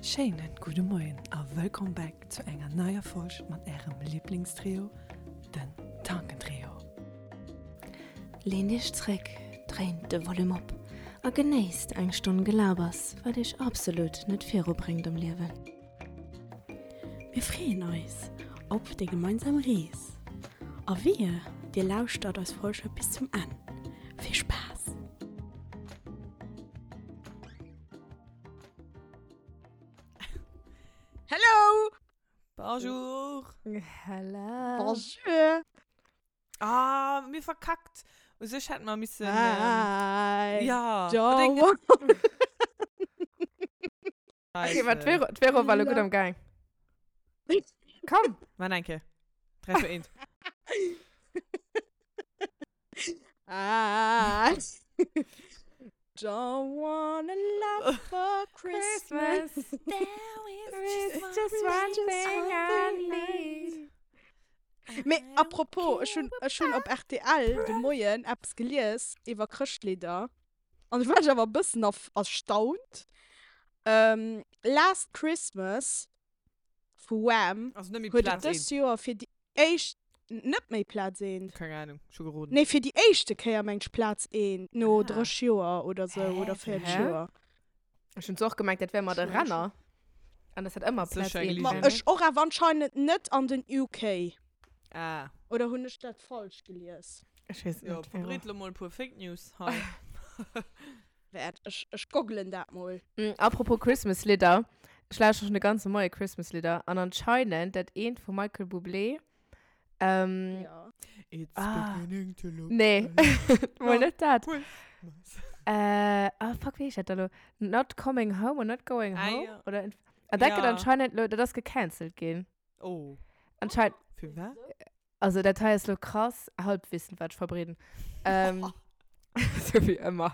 Schéinen gudde Moien a wëllkomm back zu enger neier Folg mat ärem Liblingstrio, den Tankentrio. Leent iech zréck, dréint de Volume op a genéisst eng Stonn Gelabers, wat iech absolut net viru bréngt am Liewen. Mir freeën eis op déi gemeinsam Rees a wehe dir lauschtert eis Folge bis zum Enn. Vill Spaass! Hello! Bonjour! Hello! Bonjour! Ah, mir verkackt. U sech hätte mer missen. Hi! Ähm, ja. Ciao. Okay, ma d'Vero, d'Vero war lo gutt am Gaang. Komm! Maan eng Kéier. 3, 2, 1. I don't want a lot for Christmas. There is just one thing I need. Mee apropos, ech hunn, ech hunn op rtl de Moien eppes gelies iwwer Chrëschtlidder. An ech war awer e bëssen erstaunt. Last Christmas vu Wham Also net méi huet et Plaz dëst eent. Joer fir déi éischt, net méi Plaz eent. Keng Ahnung, ech hu geroden. Nee, fir déi éischte Kéier mengt ech Plaz eent, no Ah. 30 Joer oder sou Hä? oder 40 Hä? Joer. Ech hunn zwar och gemengt, dat wär mat e Renner. An dat hat ëmmer Plaz Sécher eent. geligen. Ma ech och, awer anscheinend net an den UK. Ah. Oder hunn ech dat falsch gelies? Ech weess et Jo, net, Vero. verbreet lo mol e puer Fake News hei. Wäert, ech, ech goggelen dat mol. Apropos Christmas Lidder, ech lauschteren schon de ganze Moie Christmas Lidder an anscheinend dat eent vum Michael Bublé, ähm, Ja. It's Ah. beginning to look nee, a lot mol net dat. Christmas. Äh, ah fuck, wéi heescht dat da lo? Not Coming Home or Not Going Ah, Home? ja. Oder, an dat gëtt Ja. anscheinend lo, dat ass gecancelt ginn. Oh. Anscheinend, Fir wat? Also dat hei ass lo krass Halbwissen, wat ech verbreeden. Ähm, sou wéi ëmmer.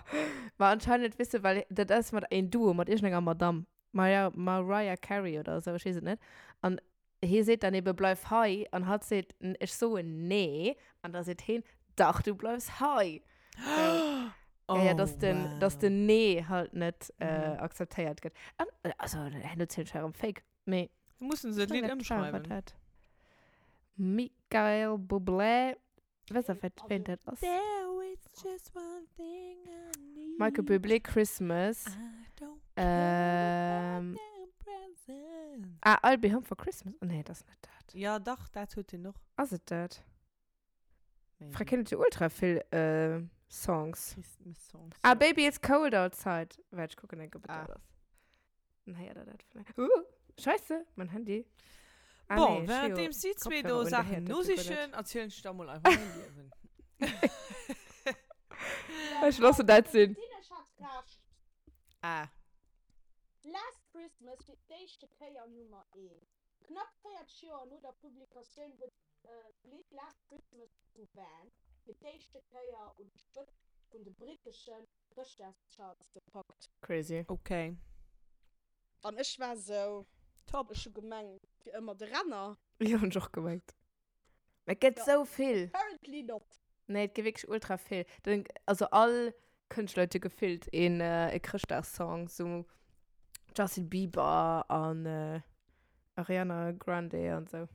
Ma anscheinend, weess de, well dat ass mat een Duo, mat iergendenger Madame, Maria, Mariah Carey oder esou, ech weess et net. An hee seet dann ebe, bleif hei. An hatt seet, ech soen nee. An da seet heen, dach, du bleifs hei. So. Oh, ja, ja, dass den, wow. dass den Nee halt net äh, Mhm. akzeptéiert gëtt. An, also, herno zielen ech erëm Fake. Mee Mussen se d'Lidd ëmschreiwen. Michael Bublé. Weess der, wat ween dat ass? There is just one thing I need. Michael Bublé Christmas. I don't care Ähm. about the presents. Ah, I'll be home for Christmas. Oh, nee, dat ass net dat. Ja, dach, dat huet hien och. Ass et dat? Maybe. Frag hien huet jo ultra vill äh, Songs. Christmas Songs. Ah, ja. Baby It's Cold Outside. Waart, ech kucken enk, ob et Ah. dat ass. Dann héiert der dat vläicht. Uh, scheisse, mein Handy. Ah, Bon, nee, währenddem si zwee do Saachen nosichen, erzielen ech der mol einfach mäin Liewen. Ech loossen dat sinn. Ech hat Recht. Ah. Last Christmas fir d'éischte Kéier Nummer eent. Knapp 40 Joer no der Publikatioun huet d'Lidd Last Christmas vu Wham! fir d'éischte Kéier un d'Spëtzt vun de britteschen Chrëschtdagscharts gepackt. Crazy. Ok. An ech war sou, Top. ech hu gemengt, fir ëmmer de Renner. Jo, hunn ech och gemengt. Mä et gëtt Ja. sou vill. Apparently not. Nee, et gëtt wierklech ultra vill. Den, also all Kënschtler huet jo gefillt een e Chrëschtdagssong, sou Justin Bieber an Ariana Grande an sou.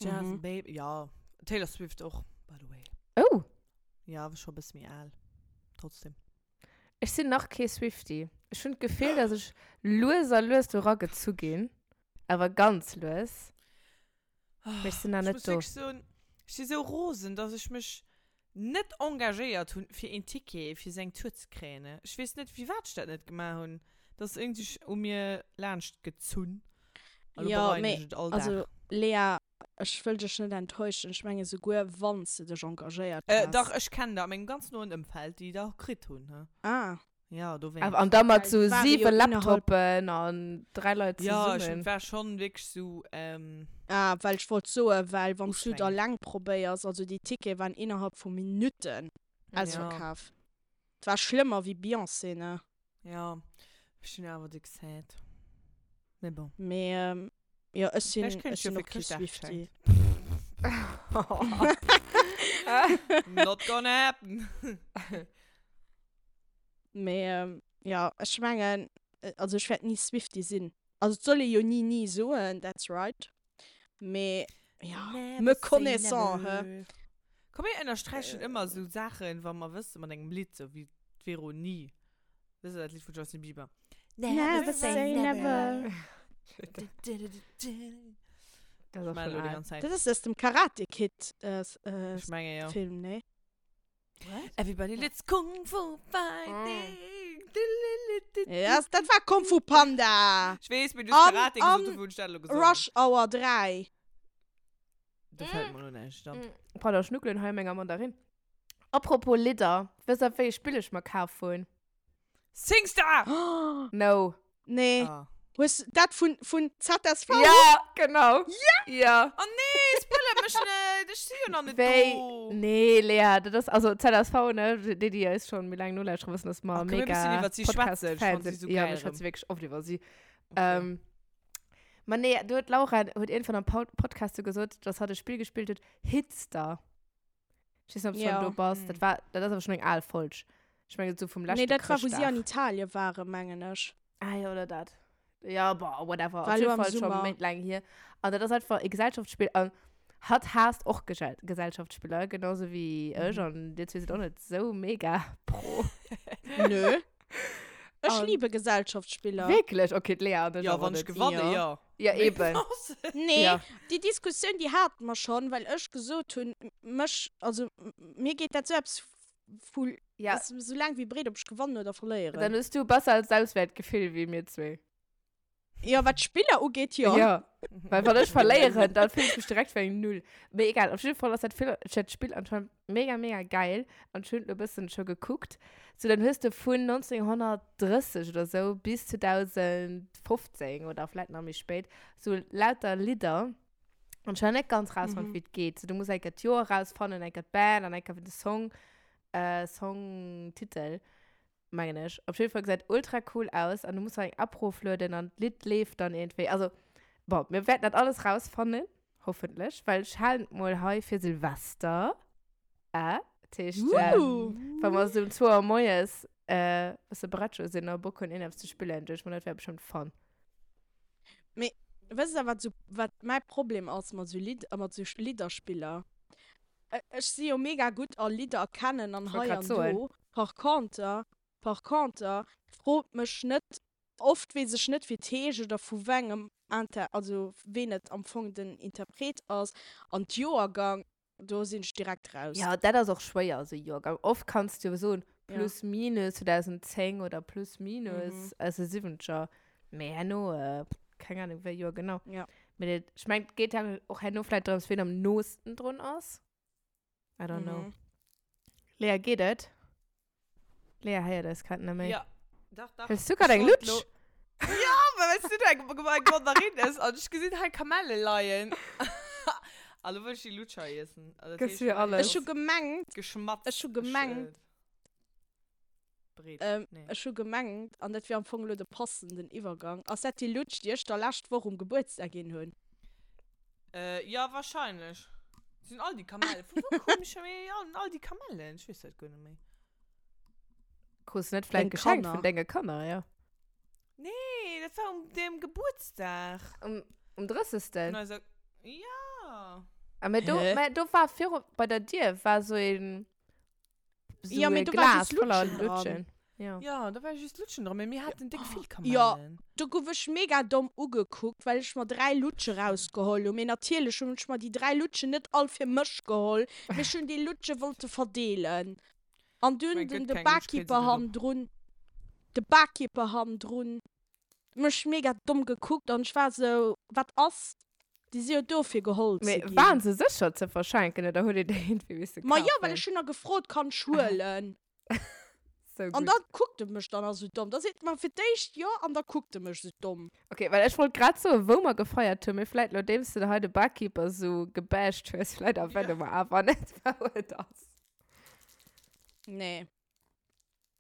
Jazz Mhm. Baby, ja. Taylor Swift och, by the way. Oh! Ja, awer scho e bësse méi al. Trotzdem. Ech sinn nach kee Swiftie. Ech hunn d'Gefill, dass ech lues a lues do eragezu ginn. Awer ganz lues. Mee ech sinn nach Ech net muss do. wierklech soen, ech si sou rosen, dass ech mech net engagéiert hunn, fir een Ticket fir seng Tour ze kréien. Ech weess net, firwat ech dat net gemaach hunn. Dat ass iergendwéi u mir laanscht gezunn. A lo Jo, bereien mee ech et all Dag. also Lea, ech wëll dech net enttäuschen, ech menge souguer wann s de dech engagéiert Äh, häss. dach, ech kennen der a mengem ganz noen Ëmfeld, déi der kritt hunn, he. Ah. Ja, dowéinst. Awer an da mat Well sou et ware jo 7 innerhalb. Laptopen an 3 Leit Ja, ech zesummen. war schon wierklech sou, ähm. Ah, well ech wollt soen, well wann s du et Ustrengend. alleng probéiers, also déi Tickete waren innerhalb vu Minutten Ja. ausverkaf. Et war schlëmmer wéi Beyoncé, ne? Ja, ech hunn awer déck sad. Mee bon. Mee jo, ech sinn, Vläicht kréien ech ech jo sinn fir och kee Chrëschtdag Swiftie. geschenkt. Not gonna happen. Mee jo, ech mengen. also ech wäert ni Swiftie sinn. Also et soll ee jo ni ni soen, that's right. Mee ja, me connaissant, hä? Komm mir ënnersträichen ëmmer esou Saachen, wa mer wëssen, mat engem Lidd, sou wéi d'Vero ni. Dat ass dat Lidd vun Justin Bieber. Never say never. Dat ass och Ech schon melle déi al. ganz Zäit. Dat ass aus dem Karate Kid äh, äh, Ech menge jo. Film, nee? Everybody let's Kung Fu fighting. Ja, dat war Kung Fu Panda. Ech weess, mee du hues An- Karate an gesot, dofir hunn ech dat elo gesongen. Rush Hour 3. Do fält mer elo näischt an. Pardon, ech schnuckelen hei menger Mandarin. Apropos Lidder, wësst der wéi ee Spill ech mer kaf hunn? Singstar! No. Nee. Ah. Hues dat vun, vun ZSV? Ja, genau. Ja! Ja. Oh nee, spoilert mech net! Ech si jo nach net Wéi? do. Nee, Lea, dat ass, also ZSV, ne, déi, déi eis schon méi laang nolauschteren, wëssen, dass mer Ach, komm, mir mega bëssen iwwer si schwätzen. Ech Podcast-Fans fand si sinn. so Ja, geil mir schwätze erëm. wierklech oft iwwer si. Okay. Ähm, ma nee, do huet d'Laura huet iergendwann am Pod Podcast so gesot, dass hatt e Spill gespillt huet, Hitster. Ich weiß nicht, ob du Ja. schon do bass. Mhm. Dat war, dat ass awer schon eng al Folg. Ich meine, so vum leschte Nee, dat war, wou si an Chrëschtdag. Italien waren, mengen ech. Ah ja, oder dat. Ja, boah, whatever. War Auf jeden lo am Fall schon Summer. méint laang hier. An dat ass einfach e Gesellschaftsspiel. An hatt haasst och Gesell Gesellschaftsspieler, genauso wie ech. Mhm. An dir zwee sidd och net sou mega pro. Nö. Ech An- liebe Gesellschaftsspieler. Wierklech? Okay, d'Lea an ech Ja, awer wann ech net. gewanne, Ja. ja. Ja, eben. Nee, Ja. déi Diskussioun, déi hate mer schonn, well ech gesot hunn, mech, also mir geet dat sou eppes vu, Ja. ass sou laang wéi breet, ob ech gewannen oder verléieren. Dann hues du besser als Selbstwertgefill wéi mir zwee. Ja, wat d'Spiller ugeet, jo. Ja. Well wann ech verléieren, dann fillen ech mech direkt wéi eng Null. Mee egal, op jidde Fall ass dat Vill, dat Spill anscheinend mega, mega geil. An ech hunn et lo e bëssen scho gekuckt. So, dann hues de vun 1930 oder sou bis 2015 oder vläit nach méi spéit sou lauter Lidder. An ech hunn nach net ganz rausfonnt, Mhm. wéi et geet. So, du muss eng Kéier d'Joer rausfannen, eng Kéier d'Band an eng Kéier de Song, äh, Songtitel. Mengen ech. Op jeden Fall gesäit ultra cool aus an du muss nach eng App roflueden an d'Lidd leeft dann iergendwéi. Also, bon, mir wäerten dat alles rausfannen, hoffentlech, well ech halen et mol hei fir Silvester. Äh, dat heescht, äh, Uh. wa mer esou um 2 Auer moies äh, bësse Brettscho sinn a Bock hunn, iergendeppes ze spillen, duecht ech mer, dat wär bestëmmt fun. Mee wësst der, wat sou, wat mäi Problem ass mat sou Lidd, mat sou Lidderspiller? Ech si jo mega gutt a Lidder erkennen an Wollt hei grad an soen. do. Par conter, par conter, frot mech net, oft weess ech net wéi et heescht oder vu wengem Inter, also ween et am Fong den Interpret ass an d'Joergang, do sinn ech direkt raus. Ja, dat ass och schwéier, esou Joergang. Oft kanns du jo soen, Ja. plus minus 2010 oder plus minus Mhm. aus de Siwwenzeger. Mee herno, keng Ahnung, wéi Joer genau. Ja. Mee dat, ech meng, et geet ja och herno vläicht drëms, wien am noosten drun ass. I don't know. Mhm. Lea, geet et? Lea héiert eis grad net méi. Ja. Dach, dach. Hues du grad Ech eng wollt Lutsch? lo- Ja, well weißt du, du eng, eng Mandarine ess an ech gesinn hei Kamelle leien. A lo wëll ech déi Lutscher iessen. Also, dat Gëss heescht, mir alles. Ech hu gemengt, Geschmatzt. Ech hu gemengt- Äh, Breet. Ähm, nee. Ech hu gemengt, an dat wier am Fong elo de passenden Iwwergang, ass dat déi Lutsch, déi ech der lescht Woch um Gebuertsdag ginn hunn? Äh, ja, wahrscheinlech. Sinn all déi Kamellen. Vu wou kommen scho méi all, all déi Kamellen? Ech weess dat guer net méi. Krus net vläicht Deng geschenkt Kanner. vun denge Kanner, ja. Nee, dat war um dem Gebuertsdag. Um, um 30. Vun eiser, ja. Ah, mä do, Hä? mä do war viru, bei der Dier war so een So Ja, mee e do war Glas just voller Lutschen dran. Lutschen. Ja. Ja, da war just Lutschen dran, mee mir haten déck vill Kamellen. Ja. Do gouf ech mega domm ugekuckt, well ech mer 3 Lutsche rausgeholl hunn. Mee natierlech hunn ech mer déi 3 Lutschen net all fir mech geholl, mee ech hunn déi Lutsche wollte verdeelen. An dunn Mein den gëtt de keng Lutsch, kritt se Barkeeper net op. hannendrun, de Barkeeper hannendrun mech mega domm gekuckt an ech war sou, wat ass? Déi si jo do fir geholl ze Mee ginn. waren se sécher ze verschenken oder hutt dir déi iergendwéi misse Ma jo, well kafen? ech hunn nach gefrot, kann ech huelen? So An gutt. da kuckt e mech dann nach sou domm. Da seet e mer fir d'éischt jo an da kuckt e mech sou domm. Okay, well ech wollt grad soen, wou mer gefeiert hunn, mee vläit nodeems de hei de Barkeeper sou gebasht hues, vläit erwäne mer awer net, wou et ass. Nee.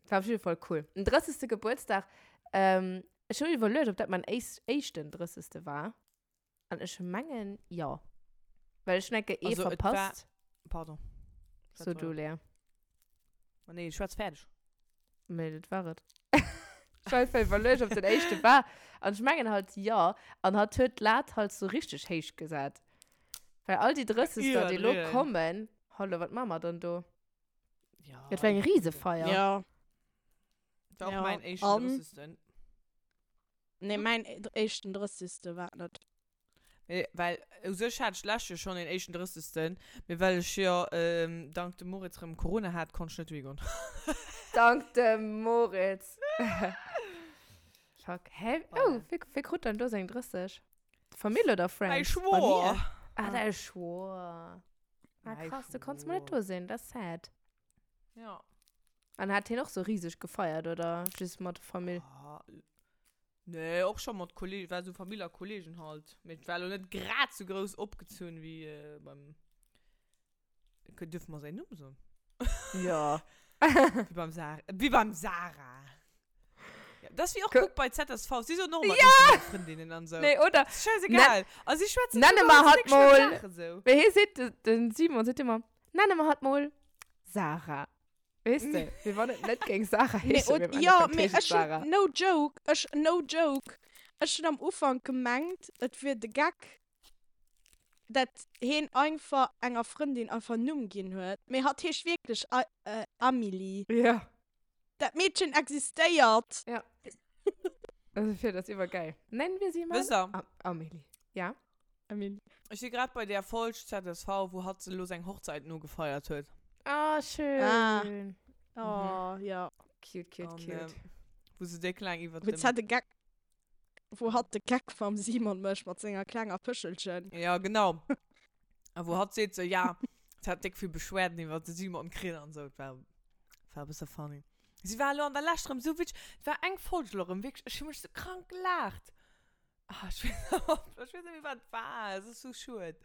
War op jidde Fall cool. Den 30. Gebuertsdag, ähm, ech hunn iwwerluecht, ob dat mein éis éischten 30. war. An ech mengen, jo. Well ech hunn enke ee Also, et war- verpasst. Pardon. So Schwätz du, weider. Lea. Oh, nee, schwätz fäerdeg. Nee, dat war et. Ech war einfach iwwerluecht, ob den éischte war. An ech mengen halt, jo. An hatt huet d'Lat halt sou richteg héich gesat. Well all déi Drëssegster, déi elo Iwwerdriwwen. kommen, hallo, wat maache mer dann do? Ja. Dat war eng Risefeier. Ja. War och Ja, mäin éischten an? Drëssegsten. Nee, mäin éischten Drëssigste war et net. Mee well u sech hat ech d'lescht Joer schonn een éischten Drëssigsten, mee well ech jo dank dem Moritz rëm Corona hat, konnt ech net dohi goen. Dank dem Moritz. Fuck. Hä? Oh, wie, wie krut dann do seng 30? Famill oder Mäi Friends? Schwoer. Ah, däi Schwoer. Ah, Mäi krass, du konntest mal net Schwoer. do sinn, dat ass sad. Ja. An hat hien och sou riseg gefeiert oder just mat der Famill? Ah, nee, och scho mat Kollegen, war sou Famill a Kollegen halt. Mee et war lo net grad sou grouss opgezunn wéi äh, beim. Dürfen mer säin Numm soen? Ja. Wéi beim Sarah. Wéi beim Sarah. Ja, das wie och Ko guck bei ZSV. Sie soen och immer ja! Freundinnen an so. Nee, oder? Das ist scheißegal. Also sie schwätzen Nenne sogar mer so hatt dick schlimm mol. Sachen so. Wéi hie seet, de, den Simon seet ëmmer, nenne mer hatt mol Sarah. Weess de, wéi wann et net géing Sarah Nee, heeschen, und, mee am ja, Endeffekt mee heescht et ech hun, Sarah. no joke, ech, no joke, ech hun am Ufank gemengt, et wier de Geck, dat heen einfach enger Frëndin einfach en Numm ginn huet, mee hatt heescht wierklech Amelie. Ja. Dat Meedchen existéiert! Ja. Also fir dat ass iwwergeil. Nennen wir sie mal Wësst der? Amelie. Ja? Amelie. Ech si grad bei där Folg ZSV, wou hatt elo seng Hochzeit nogefeiert huet. Ah, schön. Ah. Oh, ja. Cute, cute, An, cute. ähm, wou se déck laang iwwert Wou dem. d'Zette Geck Wou hatt de Geck mam Simon mécht mat senger klenger Pëschelchen. Ja, genau. A wou hatt seet sou, ja, se hat déck vill Beschwerden iwwert de Simon kritt an sou. Et war, war e bësse funny. Si war elo an der Lescht erëm sou witzeg. Et war eng Folg elo erëm, wierklech, ech hu mech sou krank gelaacht. Ah, ech weess, ech weess net méi, wat et war. Et ass sou schued.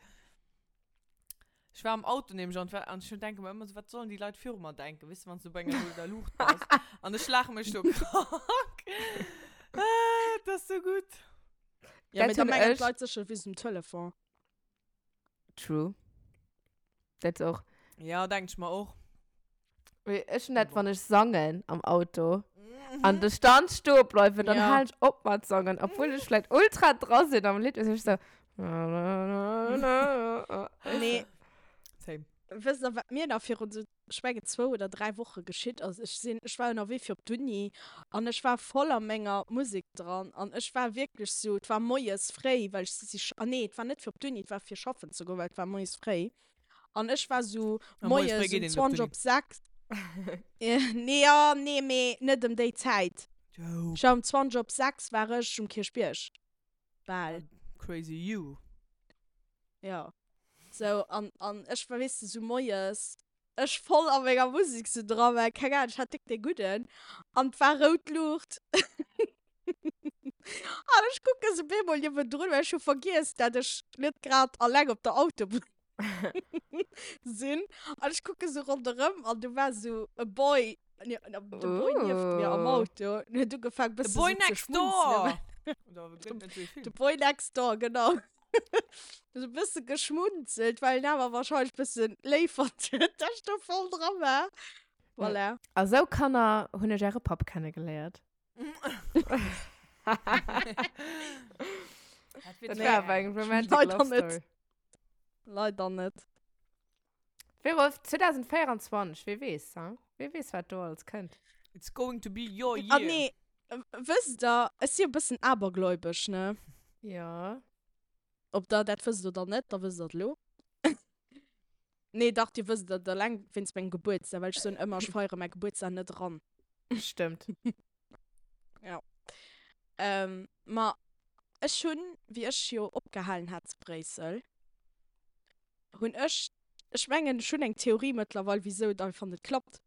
Ech war am Auto nämlech an, an ech denke mer ëmmer sou, wat sollen déi Leit viru mer denken, weess de, wann s du bei enger rouder Luucht bass. An ech laache mech do krank. Ah, dat ass sou gutt. Ja, Dat mee da hunn mengen ech. d'Leit sécher, du wiers um Telefon. True. Dat och. Ja, denk ech mer och. Mee ech hunn dat, wann ech sangen am Auto an de Stand stoe bleiwen, dann Ja. halen ech op mat sangen, obwuel ech vläicht ultra dra sinn am Lidd, weess ech sou. Nee, Same. wësst der, wat mir nach virun sou, ech mengen zwou oder dräi Woche geschitt ass? Ech sinn, ech war ënnerwee fir op d'Uni an ech war voll a menger Musek dran an ech war wierklech sou, et war moies fréi, well ech si, ah nee, et war net fir op d'Uni, et war fir schaffen ze goen, well et war moies fréi. An ech war sou A moies moies fréi geet um een op 20 d'Uni. op 6. Nee, ja, nee, mee net ëm déi Zäit. Joke. Ech war um 20 op 6 war ech um Kierchbierg. Bal. Crazy you. Ja. Sou, an, an ech war, weess de, sou moies, ech voll a menger Musek sou dran, well, keng Ahnung, ech hat déck dee Gudden. An 't war rout Luucht. An ech kucke sou bemol niewendrun, well ech hu vergiess, dat ech net grad alleng op der Autobunn sinn. An ech kucke sou ronderëm an do war sou e Boy, de Boy nieft mir am Ooh. Auto an huet ugefaang The bësse boy sou ze next door! schmunzelen. Oder gëtt net esou ee De Film? Boy next door, genau. Sou e bësse geschmunzelt, well en awer warscheinlech bësse léif fonnt huet, dat ech do voll dra war. Voilà. A sou Kanner hunn ech äre Papp kennegeléiert. Dat Dat war awer eng romantic Leider love net. story. Leider net. Vero, 2024, wie weess, hein? Wie weess, wat do alles kënnt. It's going to be your Ah year. nee, wësst der, ech si e bëssen abergläubesch, ne? Ja. Ob der dat wësst oder net, da wësst der et elo. Nee, dach, dir wësst et eleng wéinst mengem Gebuertsdag, well ech soen ëmmer, ech feiere mäi Gebuertsdag net eran. Stëmmt. Ja. Ähm, ma ech hunn, wéi ech jo opgehalen hat zu Bréissel, hunn ech, ech mengen, ech hunn eng Theorie mëttlerweil, wisou et einfach net klappt.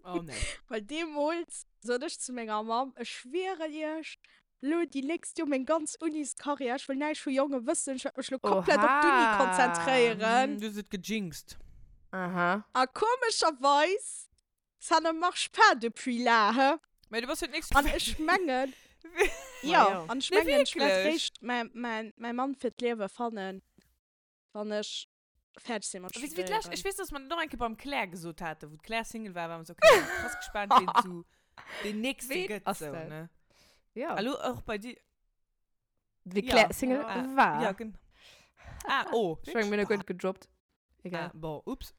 Oh nee. Well deemools sot ech zu menger Mamm, ech schwieren iech, lo déi nächst Joer meng ganz Uniscarrière, ech wëll näischt vu Jonge wëssen, ech wäert mech lo komplett op d'Uni Oha. konzentréieren. Du hues et gejinxt. Aha. A komescherweis, ça ne marche pas depuis là, he. Mä du bass jo d'nächst An ech mengen, jo, jo. an ech Nee, mengen, ech wäert wierklech. réischt mäi, mäi, mäi Mann fir d'Liewe fannen, wann ech fäerdeg sinn mat Wéi wéi d'lescht, studéieren. ech weess, dass mer dat och eng Kéier beim Claire gesot haten, wou d'Claire Single war, war mer sou, okay, krass gespaant, ween zu. Deen nächste Ween gëtt ass sou, dat? ne? Ja. Hallo, och bei dir. Wéi Ja. Claire Single Ah, war. Ja, genau. Ah, oh. Ech meng, mir hunn e gutt gedroppt. Egal. Ah, bon, ups.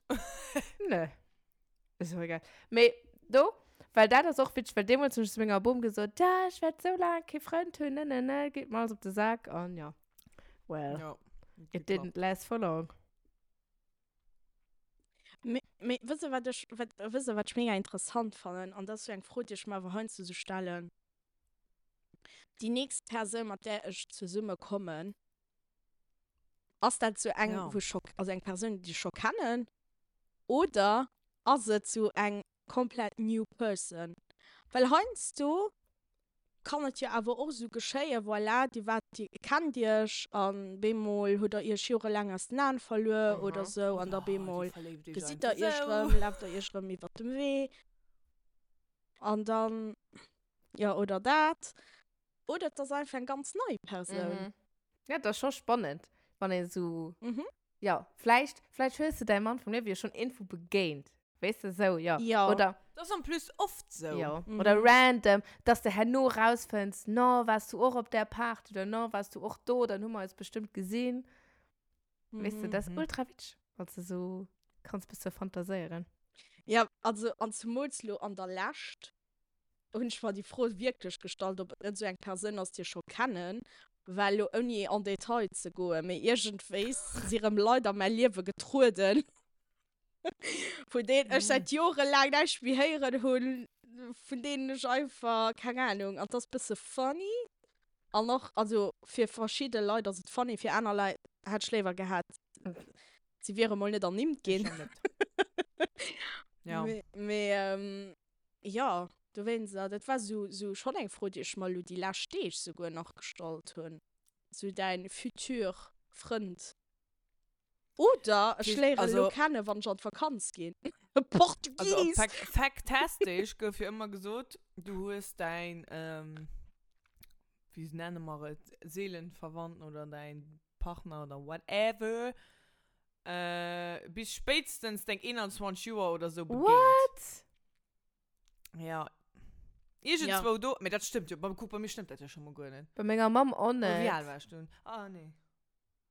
Nö. Ist och egal. Mee do, well dat ass och witzeg, well deemools hunn ech zu menger Bom gesot, ja, ech wäert sou laang kee Frënd hunn, ne, ne, ne, geet mer alles op de Sak an ja. Well, Ja. it didn't last for long. Mee, mee wësst der, wat ech, wat, wësst der, wat ech mega interessant fannen? An dat ass sou eng Fro, déi ech mer awer heiansdo sou stellen. Déi nächst Persoun, mat där ech zesumme kommen, ass dat sou eng, Ja. wou ech scho, also eng Persoun, déi ech scho kennen, oder ass et sou eng komplett new person? Well heiansdo kann et jo awer och esou geschéien, voilà, dir waart, dir kennt iech an bemol hutt der iech jorelaang aus den Aen verluer oder esou an da bemol gesitt der iech erëm, laaft der iech erëm iwwert dem Wee an dann, jo, oder dat. Oder et ass einfach eng ganz nei Persoun. Ja, et ass scho spannend, wann een esou Jo, vläicht, vläicht hues de däi Mann vum Liewe jo schonn iergendwou begéint. Weess de, sou, jo. Jo. Oder. Dat ass en plus oft sou. Jo. Oder random, dass de herno rausfënns, no, waars du och op där Party oder no, waars du och do, dann hu mer eis bestëmmt gesinn. Weess de, dat ass ultra witzeg, wann s de sou kanns bësse fantaséieren. Jo, also, an zemools lo an der Lescht, hunn ech mer déi Fro wierklech gestallt, ob et net esou eng Persoun ass, déi ech scho kennen, well elo ouni en Detail ze goen, mee iergendwéis si rëm Leit a mäi Liewe getrueden, vun deenen ech säit jorelaang näischt méi héieren hunn, vun deenen ech einfach, keng Anung, an 't ass bësse funny an och, also fir verschidde Leit ass et funny, fir aner Leit hätt ech léiwer gehat, si wiere mol net ernimmt ginn. Ja. Mee Jo, dowéinst, dat war sou, sou schonn eng Fro, déi ech mer elo déi lescht Deeg souguer nach gestallt hunn. Sou däin futur Frënd. Oder ech léieren elo kennen, wann ech an d'Vakanz ginn. Portugies! Also op Factastisch gouf jo ëmmer gesot, du hues däin, wéi nenne mer et, Seelenverwandten oder däin Partner oder whatever, Äh, bis spéitstens deng 21 Joer oder sou begéint. What? Ja. Iergendzwou do, mee dat stëmmt jo, kuck, bei mir stëmmt dat jo scho mol guer net. Bei menger Mamm och Oder wéi net. al war ech dunn? Ah, nee.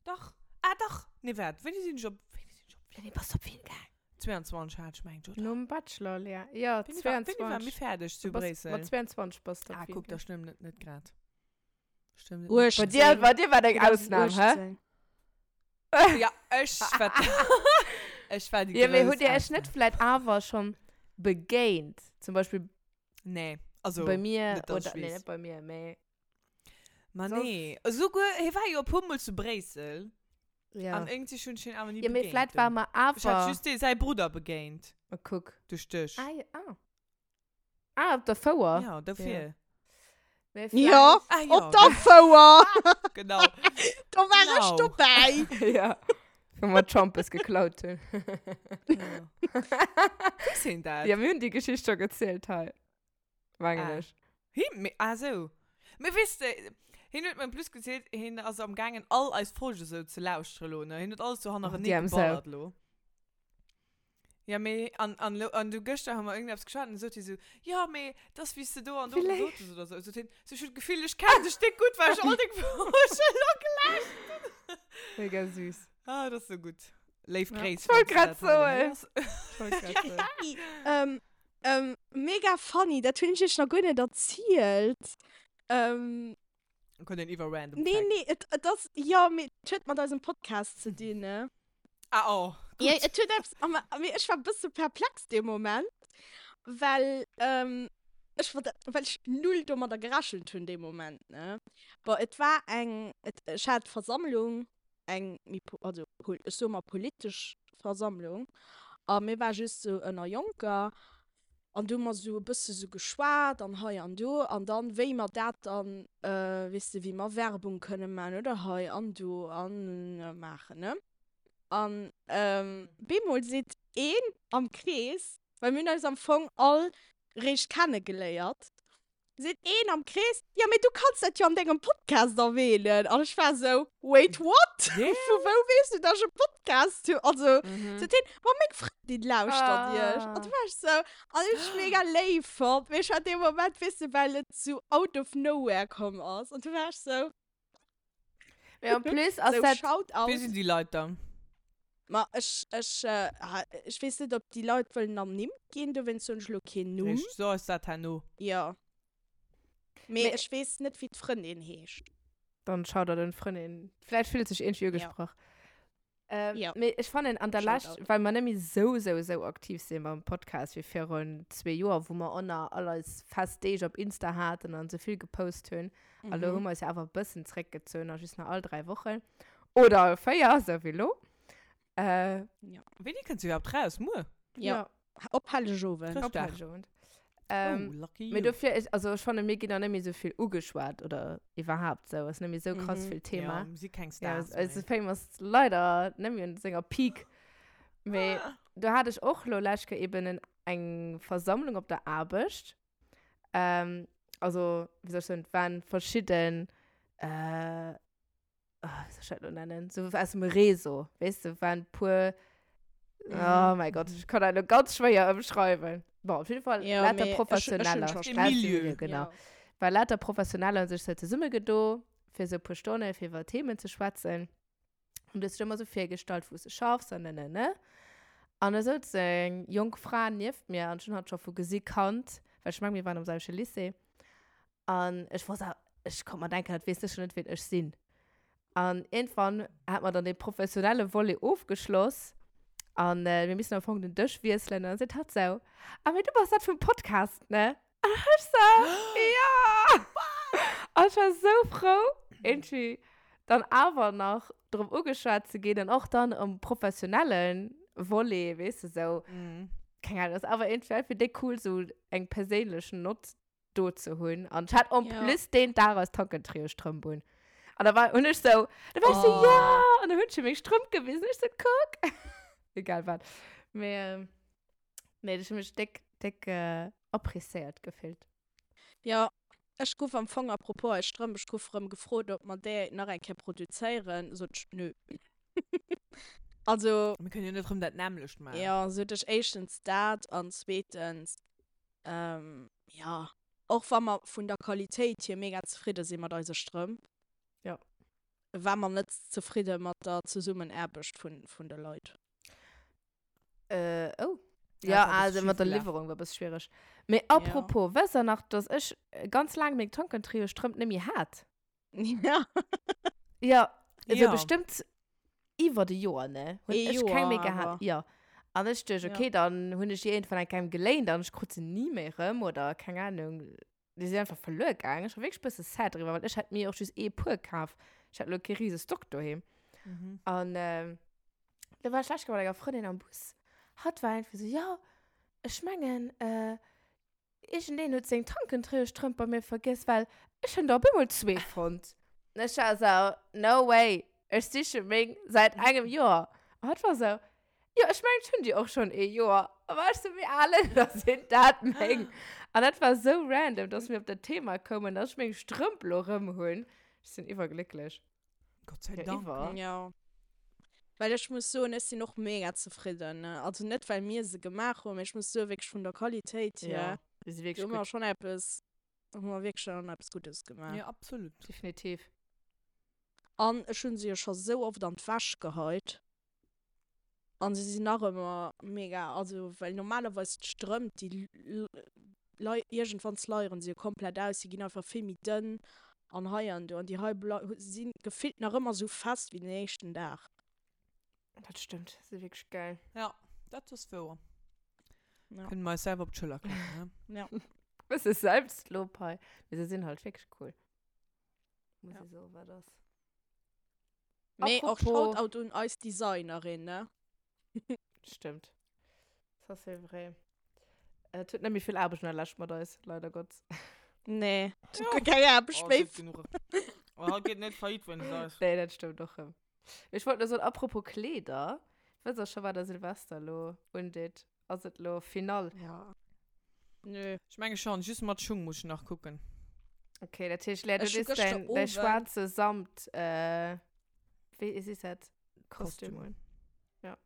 Dach. Ah, dach. Nee, waart, wéini sinn ech op, wéini sinn ech op Wéini bass du op Wien gaang? 22 hat ech mengt, oder? Nom Bachelor, Lea. Ja, Wéini war, wéini war 22. mir fäerdeg zu Du bass, Bréissel? mat 22 bass du op Ah, Wien kuck, da gaang. stëmmt et net grad. Stëmmt et net. Bei 18. dir, bei dir war dat eng Ausnam, hä? 2018. Ja, ech war, ech war déi Ja, mee grouss hutt dir iech net Ausnam. vläit awer schonn begéint? Zum Beispill Nee, also bei mir net, dass oder, ech nee, weess. net bei mir, mee Ma soss. nee, esouguer, hie war jo e puer Mol zu Bréissel. Ja. An irgendwie hunn ech hien awer ni Ja, mee begéint vläit war do. mer Ech hat awer. just dee säi Brudder begéint. Oh, kuck. Duerch dech. Ah, ja, ah. Ah, op der Fouer. Ja, dofir. Mee Ja, vläicht. Ah, ja. op der Fouer. Genau. Do war ech Genau. dobäi. Ja. Wou mer d'Schampes geklaut hunn. Ja. Weess hien dat? Ja, mir hunn déi Geschicht scho gezielt hei. Mengen Ah. ech. Him, mee, ah sou. Mee weess de, hien huet mer en plus gezielt, hien ass am gaangen all eis Folge sou ze lauschteren lo, ne? Hien huet alles sou hannerenee déi arm Sau. geballert lo. Ja, mee, an, an, lo, an du gëschter hu mer irgendeppes geschwat an du sot hie sou, jo, mee, dass wéi s de do an do Wéi gesot hues oder sou. Sot hien, sou, ech hunn d'Gefill, ech kennen dech déck gutt, well ech all deng Folgen lo gelauschtert hunn. Mega süß. Ah, dat ass sou gutt. Léif Ja. Gréiss, Ech wollt falls du grad dat hei soen. héiers. Ech wollt grad soen. Hey, ähm, ähm, mega funny, dat hunn ech iech nach guer net erzielt. Ähm, Dann kënnt een iwwer random nee, Fact. nee, et, et ass, jo, mee et huet mat eisem Podcast ze dinn, ne? Ah, oh, Ja, gutt. et huet eppes, a ma- mee ech war e bësse perplex dee Moment, well, ähm, ech war, well ech null domadder gerechent hunn dee Moment, ne? Bon, et war eng, et, ech hat Versammlung, eng méi po-, also pol-, ech soe mer politesch Versammlung, a mir war just sou ënner Jonker, An du hu mer sou e bësse sou geschwat an hei an do. An dann, wéi mer dat dann, weess de, wéi mer Werbung kënne man oder hei an do an maachen, ne? An bemol seet een am Krees, well mir hunn eis am Fong all réischt kennegeléiert. Seet een am Krees, Jo, mee du kanns dat jo an dengem Podcast erwähnen. An ech war esou, Wait, what? Vu wou weess du, dass ech e Podcast hunn? Also, seet hien, Ma meng Frëndin lauschtert iech. An du war ech esou, an ech mega léif fonnt, mee ech war dee Moment, weess de, well et sou out of nowhere komm ass. An du war ech sou. Mee en plus ass Sou, dat. Shoutout. Wie sinn déi Leit dann? Ma ech, ech, ech weess net, ob déi Leit wëllen ernimmt ginn, dowéinst soen ech elo keen Numm. Richteg, so eis dat herno. Jo. Mee Mee ech weess net, wéi d'Frëndin heescht. Dann Shoutout un d'Frëndin. Vläicht fillt sech iergendwéi Ja. ugesprach. Ähm, Ja. Mee ech fannen an der Lescht, Shoutout. well mer net méi sou, sou, sou aktiv sinn mam Podcast wéi virun zwee Joer, wou mer och nach all eis fest Deeg op Insta haten an sou vill gepost hunn. A lo hu Mhm. mer eis jo awer e bëssen zréckgezunn a just nach all 3 Wochen. Oder all 4, sou wéi lo. Äh, Ja. Wéini kënnt se iwwerhaapt raus? Muer? Ja. ja. Op Hellegowend. Op Chrëschtdag. Hellegowend. Ähm, Oh, lucky Mee you. dofir, ich, also ech fanne mir ginn auch net méi sou vill ugeschwat oder iwwerhaapt sou, ass net méi sou krass Mhm. vill Thema. Ja, mir si keng Ja, Stars also méi. Fame ass leider net méi un senger Peak. Mee do hat ech och lo lescht Kéier eben en, eng Versammlung op der Aarbecht. Ähm, also, wéi soll ech soen, et waren verschidden, äh, oh, wéi soll ech dat lo nennen, so aus dem Réseau, weess de, waren puer, oh mein Gott, ich kann dat lo ganz schwéier ëmschreiwen. Bon, op jeden Fall Ja, lauter mee ech, ech hunn Professioneller. schon Aus dem Aus dem Milieu. Milieu, genau. Ja. War lauter Professioneller hunn sech so zesummegedo, fir so e puer Stonne fir iwwer Themen ze schwätzen. Und du hues dech ëmmer so virgestallt, wou s de schaffs an ne, ne, ne. An da souz eng jonk Fra nieft mir, an ech hunn hatt scho vu gesi kannt, well ech meng, mir waren am selwechte Lycée. An ech wor sou, ech konnt mer denken, dat weess sécher net, wien ech sinn. An iergendwann hat mer dann dee professionelle Volet ofgeschloss an mir missen am Fong den Dësch wiesselen. An dann seet hatt sou, Ah, mee du bass dat vum Podcast, ne? An ech sou, Jo! An ech war sou frou, iergendwéi dann awer nach drop ugeschwat ze ginn an och dann um professionelle Volet, weess de, sou, keng Ahnung, ass awer iergendwéi einfach déck cool, sou eng perséinlech Nott do ze hunn. An ech hat en Ja. plus deen Dag eis Tankentrio-Strëmp un. An da war, hunn ech sou, da war ech sou, Oh. ja! An da hunn ech him meng Strëmp gewisen. Ech sou, kuck! Egal wat. Mee, ähm, nee, ech hu mech déck, déck äh, appréciéiert gefillt. Ja, ech gouf am Fong, apropos eis Strëmp, ech gouf erëm gefrot, ob mer déi nach eng Kéier produzéieren. Sot ech, nö. Also. Mir kënnen jo net erëm dat nämmlecht maachen. Ja, sot ech, éischtens dat an zweetens, Ähm, ja, och wa mer vun der Qualitéit hier mega zefridde si mat eise Strëmp, Ja. war mer net zefridde mat der Zesummenaarbecht vun, vun de Leit. Äh, oh. Ja, Ja, dat war e also bësse mat der schief gelaf. Liwwerung war e bësse schwiereg. Mee Ja. apropos, wësst der nach, dass ech ganz laang meng Tankentriostrëmp net méi hat? Ja. Ja, also Ja. bestëmmt iwwer e Joer, ne? Hunn Ee ech keng méi Joer gehat. awer. Ja. An ech duecht, Ja. okay, dann hunn ech déi iergendwann eng Kéier geléint an ech krut se ni méi erëm oder keng Ahnung, déi sinn einfach verluer gaangen. Ech war wierklech e bësse sad driwwer, well ech hat mir och just ee Puer kaf. Ech hat elo kee rise Stock doheem. Mhm. An ähm, da war ech lech mat enger Frëndin am Bus. Hatt war einfach so, ja, ech mengen, äh, Iergendeen huet seng Tankentréiestrëmp bei mir vergiess, well ech hunn der op eemol zwee fonnt. An ech war esou, no way, ech siche meng säit engem Joer. An hatt war esou, jo, ech mengen, ech hunn déi och schonn ee Joer. A war ech sou, wéi al da sinn dat meng? An dat war esou random, dass mir op dat Thema koumen, dass ech meng Strëmp lo erëm hunn. Ech sinn iwwerglécklech. Gott sei Ja, Dank. iwwer. Ja. Well ech muss soen, ech sinn och mega zefridden, ne. Also net well mir se gemaach hunn, mee ech muss soen, wierklech vun der Qualitéit hier, Ja, déi si do wierklech hu mer gutt. schonn eppes, hu mer wierklech schonn eppes Guddes gemaach. Ja, absolut. Definitiv. An ech hunn se jo scho sou oft an d'Wäsch geheit. An se sinn nach ëmmer mega, also well normalerweis d'Strëmp déi lei iergendwann sleieren se jo komplett aus, se ginn einfach vill méi dënn an hei an do an déi hei blei si gefillt nach ëmmer sou fest wéi den éischten Dag. Dat stëmmt, se si wierklech gäil. Ja, dat ass wouer. Ja. Kënne mer eis selwer op d'Schëller klappen, ne? Ja. Bësse Selbstlob hei, mee se sinn halt wierklech cool. Muss Ja. ee soen, wat ass. Mee och Apropos- Shoutout un eis Designerin, ne? Stimmt. Ça c'est vrai. Et huet net méi vill Aarbecht an der Lescht mat eis, leider Gott. Nee, et huet guer keng Aarbecht Oh, méi. et gëtt genuch. Oh, haut geet net faillite wéinst eis. Nee, dat stëmmt och rëm. Ech wollt nur soen, apropos Kleeder, wësst der scho, wat der Silvester lo undeet? Ass et lo final? Ja. Nö. Ech menge schon, just mat Schung muss ech nach kucken. Okay, dat heescht, Lea, du Ech hu dees gëschter däin, däi Owend- schwaarze Samt, äh, wéi is dat? Kostüm Kostüm. un. Ja.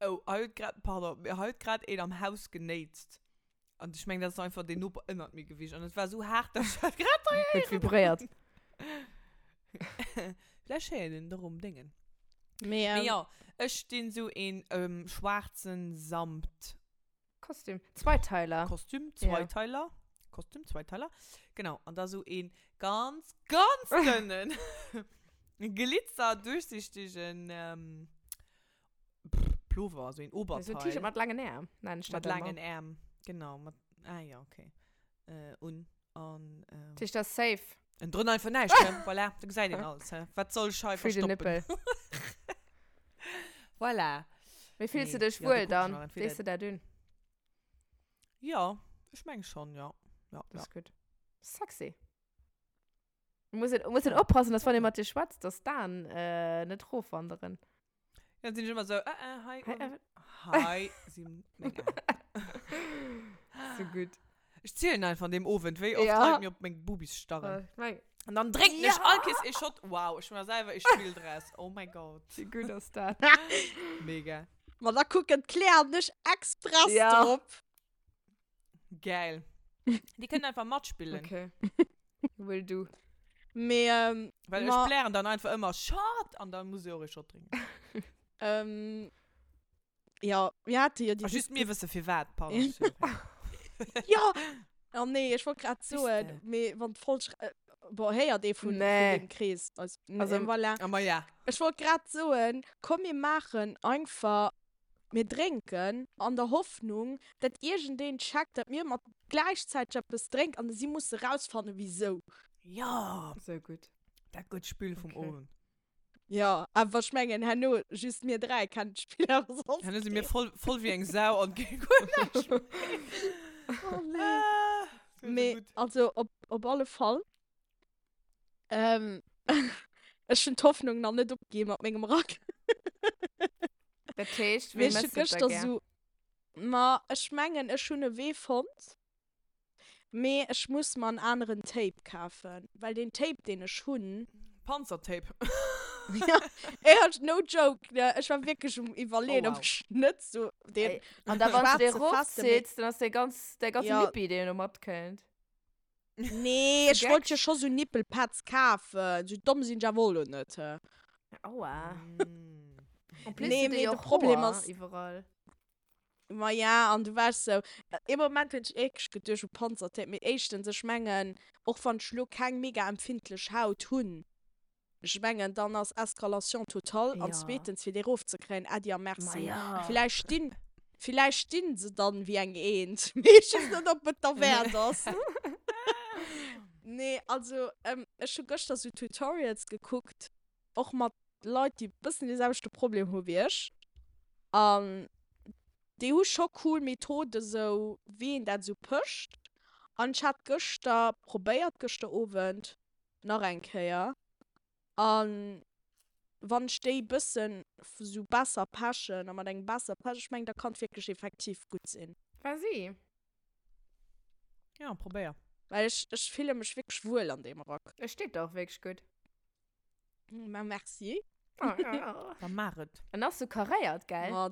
Oh, hei huet grad, pardon, mee hei huet grad een am Haus genéitst. An ech mengen, dat ass einfach deen Noper ënnert mir gewiescht. An et war esou haart, dass ech dat grad hei Huet héieren vibréiert. Vläch héiert een et och um Déngen. Mee, Mee ähm, jo, ech dinn esou een ähm, schwaarzen Samt. Kostüm. Zweiteiler. Kostüm, Ja. Zweiteiler. Kostüm, Zweiteiler. Genau. An da sou een ganz, ganz dënnen, Glitzer, durchsichtigen ähm, pff, Pullover, so een So ein Oberteil. T-Shirt mat langen Äerm, nennen ich Mat dat ëmmer. langen Äerm. Genau. Mat, ah ja, okay. Äh, un. An, ähm, Dat heescht, dat ass safe. En drënner einfach näischt, ne? Voilà, da gesäit een alles, hä? Wat soll ech hei Free the verstoppen? nipple. Voilà. Wéi fills du Nee, dech ja, do wuel kucken ech dann? nach entweder- Dees du dat un? Ja, ech meng schon, ja. Ja, Das ja. ist gut. Sexy. Muss een, muss een oppassen, dass wann ee mat dir schwätzt, dass d'Aen äh, net rofwanderen. Dann sinn ech ëmmer sou, äh, äh, hei, Hei, un, äh, hei si meng Aen. So gutt. Ech zielen einfach an deem Owend, wéi oft Ja. Leit mir op meng Bubis starren. Äh, meng, An dann drénken ech Ja. all Kees ee Shot. Wow, ech hu mer selwer ee Spill draus. Oh my God. wéi gutt ass dat? Mega. Ma da kucken d'Claire an ech express Ja. drop. Geil. Déi kënnen einfach matspillen. Okay. Will do. Mee, ähm, Well ma, ech blären dann einfach ëmmer Shot! An dann muss ech och ee Shot drénken. ähm, ja, mir hate jo déi A just mir wësse firwat, pardon. Ja! Oh nee, ech wollt grad soen, Wüsste. mee wann d'Folg, äh, boah, héiert ee vun, vun Nee. dem Krees. Also, Also, äh, voilà. Ah, ma ja. Ech wollt grad soen, komm mir maachen einfach, mir drénken an der Hoffnung, dat iergendeen checkt, dat mir mat gläichzäiteg eppes drénken an si musse rausfannen, wisou. Ja! So gutt. Dat gutt Spill vum Okay. Owend. Ja, awer ech mengen herno just mir 3 kennen d'Spill awer soss Herno si mir voll, voll wéi eng Sau an ginn guer näischt méi. Oh nee. Ah, sou Mee gutt. also op, op alle Fall. Ähm, ech hunn d'Hoffnung nach net opginn mat mengem Rack. Dat heescht, Mee wéi ech hu mëss du et da gëschter gär? sou, ma ech mengen ech hunn e Wee fonnt. Mee ech muss mer en aneren Tape kafen, well deen Tape deen ech hunn. Panzertape. Ja, ey, no joke, ne, ech war wierklech um iwwerleeën, Oh, ob wow. ech net sou deen Ey, an da wann du dee schwaarze festen, mee rofzitts, dann ass dee ganz, däi ganze Ja. Nippi deen do matkënnt. Nee, ech wollt jo Gecksch. scho sou Nippelpads kafen, sou domm sinn ech awer och lo net, he. Aua. Mm. En plus Nee, huet dee mee jo de och Problem Hoer ass. iwwerall. Ma ja, an du waars sou, ee Moment hunn ech wierklech geduecht u Panzertape, mee éischtens, ech mengen, och wann ech lo keng mega empfindlech Haut hunn, ech mengen, dann ass Escalation totale, an Ja. zweetens, fir déi erofzekréien, Äddi a Ma Merci. ja. Villäicht stinn, villäicht stinn se dann wéi eng Eent, mee ech weess net, ob et derwäert ass. Nee, also, ech hu gëschter sou Tutorials gekuckt, och mat Leit, déi bëssen dee selwechte Problem hu wéi ech. An déi hu scho cool Methoden, sou wéi een dat sou pëscht. An ech hat gëschter probéiert, gëschter Owend nach eng Kéier. An wann ech déi bëssen sou besser pechen a mat engem besser Pech, ech mengen, da kann et wierklech effektiv gutt sinn. Vas-y. Ja, probéier. Well ech, ech fille mech wierklech wuel an deem Rack. Et steet der och wierklech gutt. Ma merci. Da maach et. En ass sou karéiert, gell? Ma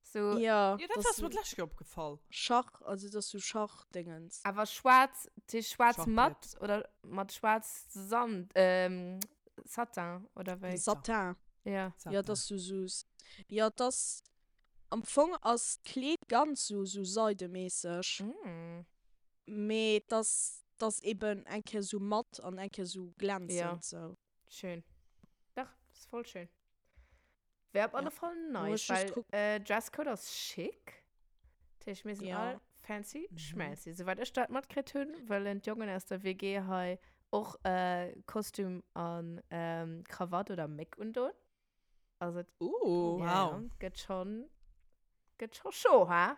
So, ja, Ja, dat das ass mir d'lescht Kéier opgefall. Schach, also das so Schachdingens. awer schwaarz, dat heescht schwaarz Schachbrett. matt oder mat schwaarz Sand, ähm, Satin oder wéi? Satin. Ja. Ja, das so so. Ja, das am Fong ass d'Kleed ganz so so seidemäßeg. Mm. Mee das das eben eng Kéier so matt an eng Kéier so glänzend Ja. so. Schön. Dach, ist voll schön. Wär op alle Ja. Fall Muss nice, just weil gucken. äh, Dresscode ass schick. Dat heescht, mir sinn Ja. all fancy Mhm. schmancy. Soweit ech dat matkritt hunn, wëllen d'Jongen aus der WG hei och äh, Kostüm an ähm, Krawatt oder Méck undoen. Also, et Uh. ja, Wow. ja, gëtt schon, gëtt schon chaud, ha?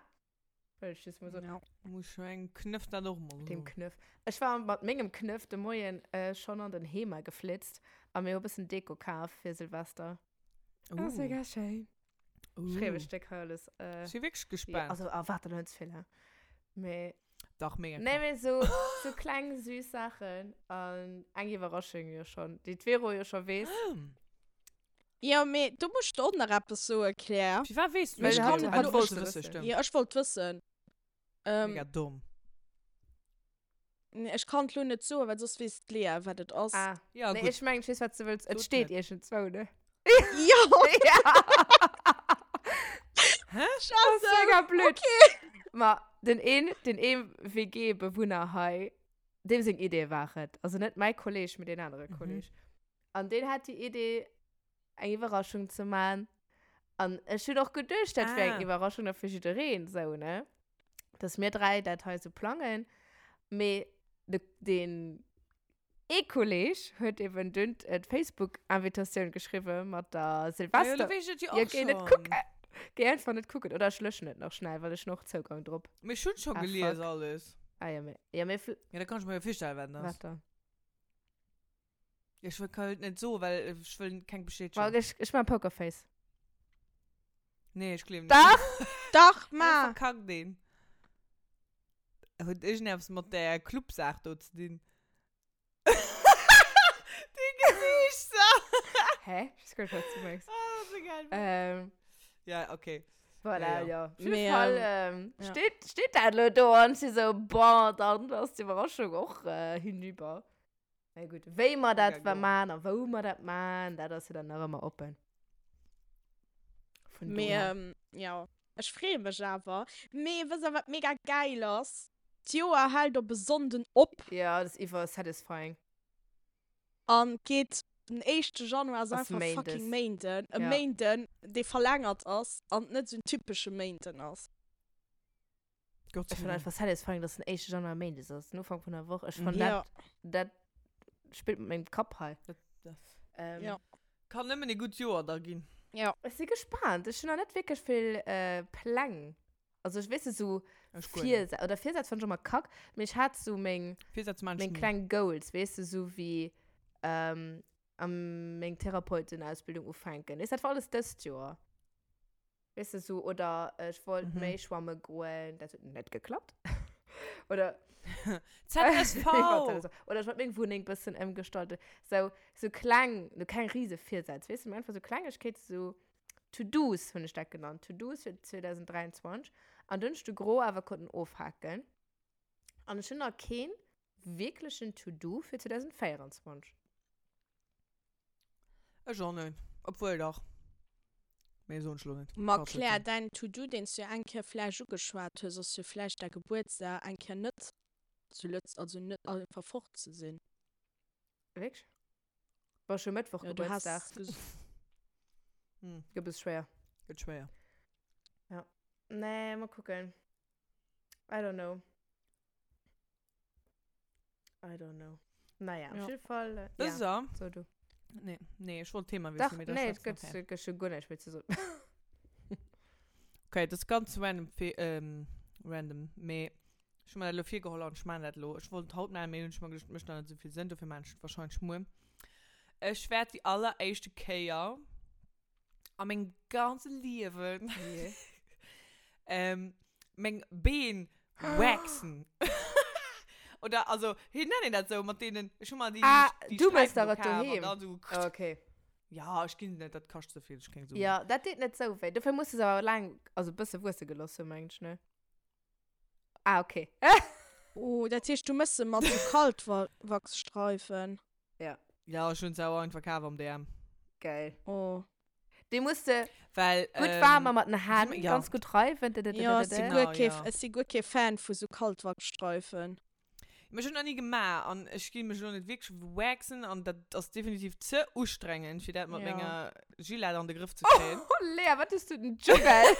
Wëll ech just mol soen. Ja. Muss ech mengem Knëff dat och mol Dem soen. Knëff. Ech war mat mengem Knëff de Moien äh, schonn an den Hema geflitzt a mir hu bëssen Deko kaf fir Silvester. Uh. Ass mega schéin. Schreiw ech déck hei alles. Äh, Ech si wierklech gespaant. Ja, also erwaart der net ze vill, hä? Mee. Dach, mega Nee, mee so, so kleng süß Saachen an eng Iwwerraschung jo schon, déi d'Vero jo scho weess. Jo, mee do muss ech der och nach eppes soen, Claire. Firwat weess du Well dat? hatt, Ah, hatt du wollt wolls se wëssen, wëssen. stimmt. Jo, ech wollt wëssen. Ähm, Mega domm. Nee, ech kann et lo net soen, well soss weess d'Lea, wat et ass. Ah, Ja, nee, gutt. ech mengen, ech weess, wat s du wëlls. Et Sot steet net. iergendzwou, ne? Jo! Ja! Hä? Das ist Scheiße! mega blöd. Okay. Ma den een, den ee WG-Bewunner hei, deem seng Idee war et. Also net mäi Kolleg, mee deen anere Mhm. Kolleg. An deen hat déi Idee, eng Iwwerraschung ze man. An ech hunn och geduecht, dat wär eng Ah. Iwwerraschung da fir jiddereen, sou, ne? Dass mir 3 dat hei sou plangen. Mee de, den ee Kolleg huet eben dunn d'Facebook-Invitatioun geschriwwen mat der Silvester. Ja, lo weess ech et jo Ja, och géi net schonn. kucken. Géi einfach net kucken. Oder ech löschen et nach schnell, well ech hunn och Zougang drop. Mee ech hunn scho Ah, gelies fuck. alles. Ah ja, mee, ja, mee vl- Ja, da kann ech mer jo virstellen, wat et ass. Wat dann? Ech wëll kann et net soen, well ech wëll keng Bestätegung. Well ech, ech man Pokerface. Nee, ech gleewen net. Dach! Dach, Ma! ma! Verkackt een. Huet iergendeppes mat där Clubsaach do ze dinn? Dee Gesiicht! Hä? Ech weess guer net, wat s du mengs. Ah, dat ass esou geil. Ähm. Ja, okay. Voilà, Ja, ja. ja. Op jidde Mee, Fall ähm, ähm, ja. steet, steet dat elo do an ech si sou, bon, dann ass d'Iwwerraschung och äh, hinüber. Na gut, wéi mer dat Mega man a wou mer dat man, dat ass jo dann nach ëmmer oppen. Vun Mee, dohier. ähm, ja, ech freeë mech awer. Mee wësst der, wat mega gäil ass? D'Joer hält op e Sonnden op. Ja, dat ass iwwer satisfying. An geet den éischte Januar ass Ass einfach Méindes. fucking Méinden. E Ja. Méinden, dee verlängert ass an net esou en typesche Méinden ass. Gott sei Ech fann Dank. einfach satisfying, dass den éischte Januar Méindes ass, den Ufank vun der Woch. Ech fann Ja. dat, dat spillt mat mengem Kapp hei. Dat, dat Ähm, Ja. kann nëmmen e gutt Joer da ginn. Ja. Ech si gespaant. Ech hunn nach net wierklech vill äh, Pläng. Also ech weess net, sou Ech guer net. Virsätz, oder Virsätz fann ech ëmmer kack, mee ech hat sou meng, Virsätz maan ech meng ni. kleng Goals, weess de, sou wéi ähm, am meng Therapeutenausbildung ufänken. Weess, dat war alles dëst Joer. Weess de, sou, oder ech wollt Mhm. méi schwamme goen, dat huet net geklappt. Oder ZSV! Oder ech wollt meng Wunneng bëssen ëmgestalten. Sou, sou kleng, no keng riese Virsätz, weess de, mee einfach sou Klengegkeete, sou To-Dos hunn ech dat genannt, To-Dos fir 2023. An dunn hunn ech de Gros awer konnten ofhaken. An ech hunn nach keen wierklechen To-Do fir 2024. Ech och net. Obwuel dach. Mee soen ech lo net. Ma Quatsch Claire, net. däin To-Do, deen s du jo eng Kéier vläicht ugeschwat hues, ass jo vläicht däi Gebuertsdag eng Kéier net zu Lëtz, also net einfach fort ze sinn. Wierklech? Bon, ech hu Mëttwoch Jo, du has Gebuertsdag. ges. Hm. Gëtt e bësse schwéier. Gëtt schwéier. Ja. Nee, mol kucken. I don't know. I don't know. Naja, op Ja. jidde Fall. Äh, Das ja. ist er. So, du. Nee, nee, ich wollte Thema Dach, wissen. mee da nee, et schwätzen gëtt nachher. gëtt schon guer näischt méi ze soen. Okay, das ist ganz random, fe- ähm, random. Mee ich hu mir dat elo virgeholl an ich maan dat elo. Ich wollt haut maachen, mee hunn ech mer geduecht, mécht nach net esou vill Sënn, dofir maan ech et wahrscheinlech muer. Ech wäert déi alleréischte Kéier a mengem ganze Liewen Yeah. ähm, meng Been waxen. Oder, also, wéi nennt een dat sou, mat deenen, ech hu mer déi, Ah, déi du méchs Sträifen der do et kaf an doheem. dann sou Okay. Ja, ech ginn net, dat kascht ze vill, ech keng Suen. Ja, dat deet net sou wéi. Dofir muss du se awer laang, also e bësse wuesse gelooss hunn, mengen ech, ne? Ah, okay. Oh, dat heescht, du méchs se mat sou Kaltwachsstreifen? Ja. Ja, ech hunn se awer einfach kaf am DM. Geil. Oh. Déi muss de Well, gutt ähm, waarm a mat den Hänn ja. ganz gutt reiwen. Ja, ech si Genau, guer kee, ja. ech si guer kee Fan vu sou Kaltwachsstreifen. Mee ech hunn nach ni gemaach an ech gi mech elo net wierklech waxen an dat ass definitiv ze ustrengend, fir dat mat Ja. menger Gillette an de Grëff ze kréien. Oh, Lea, wat hues du den Juggle?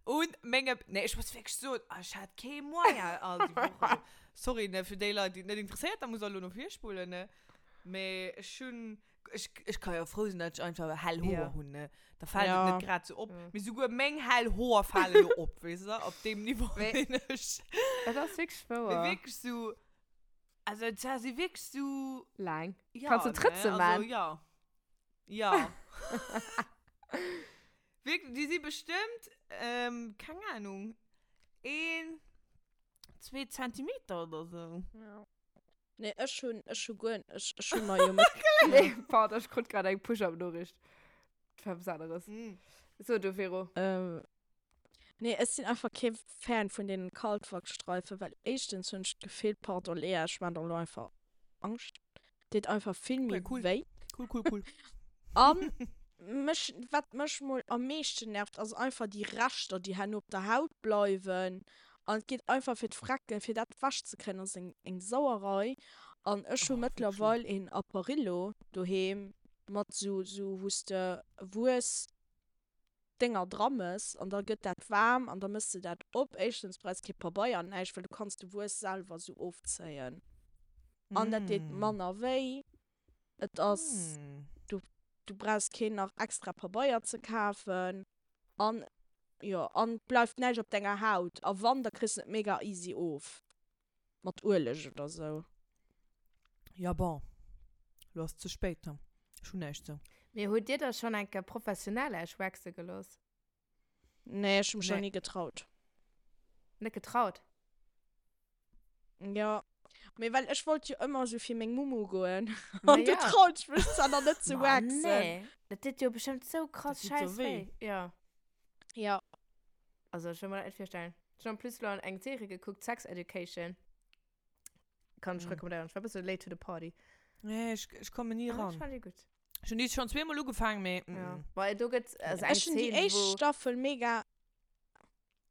Un menge, nee, ech muss wierklech soen, ech hat kee Moyen all déi Woche. Sorry, ne, fir déi Leit, déi et net interesséiert, da muss der elo no vir spulen, ne. Mee ech hunn, ech, ech ka jo frou sinn, datt ech einfach hell Hoer Ja. hunn, ne. Da fält et Ja. net grad sou op. Ja. Mee souguer meng hell Hoer fale lo op, weess de, op deem Niveau Mee- sinn ech. Dat ass wierklech Mee wouer. wierklech sou, also et si wierklech sou, Laang. ja, Kanns du ne, Trëtze also man? ja. Ja. Wierklech, déi si bestëmmt, ähm, keng Ahnung, een, zwee Zentimeter oder sou. Ja. Nee, ech hunn, ech hu guer, ech, ech hu mer jo mat. Nee, pardon, ech krut grad eng Push-Up-Noriicht. Dat war eppes aneres. Mm. So, du, Vero. Ähm, nee, ech sinn einfach kee Fan vun deenen Kaltwachsstreifen, well éischtens hunn ech d'Gefill, pardon Lea, ech maan der elo einfach Angscht, deet einfach vill méi Okay, cool. wéi. Cool, cool, cool. An mech, wat mech mol am meeschten nervt, ass einfach déi Reschter, déi herno op der Haut bleiwen. An et geet einfach fir d'Frecken, fir dat wech ze kréien, ass eng, eng Sauerei. An ech hu Oh, wierklech. mëttlerweil een Apparillo doheem mat sou, sou wou s de Wuess Dénger dra mëss an da gëtt dat waarm an da mëss de dat op. Éischtens brauchs kee Pabeier an näischt, well du kanns de Wuess selwer sou ofzéien. An dat deet Mm. manner wéi. Et ass, Mm. du, du brauchs keen nach extra Pabeier ze kafen. An jo, an et bleift näischt op denger Haut. A wann, da kriss de et mega easy of. Mat Ueleg oder sou. Ja bon, lo ass ze spéit, ne? Ech hunn näischt sou. Mee hutt dir da schonn eng Kéier professionell Äech waxe gelooss? Nee, ech hu mech nach Nee. ni getraut. Net getraut? Jo, mee well ech wollt jo ëmmer sou fir meng Mumu goen. Ma An du ja. traut ech mech zwar nach net ze Ma waxen. nee, dat deet jo bestëmmt sou krass Dat deet sou schäiss wéi. wéi. Jo. Ja. Also ech wëll mer dat net virstellen. Ech hunn en plus lo eng Serie gekuckt, Sex Education. Kann ech Mm. recommandéieren. Ech war e bësse late to the party. Nee, ech, ech komme ni Ah, ran. ech fand déi gutt. Ech hunn déi schonn zweemol ugefaangen, mee mm. Ja. Well do gëtt also eng Ech hunn déi Szene, éischt wou Staffel mega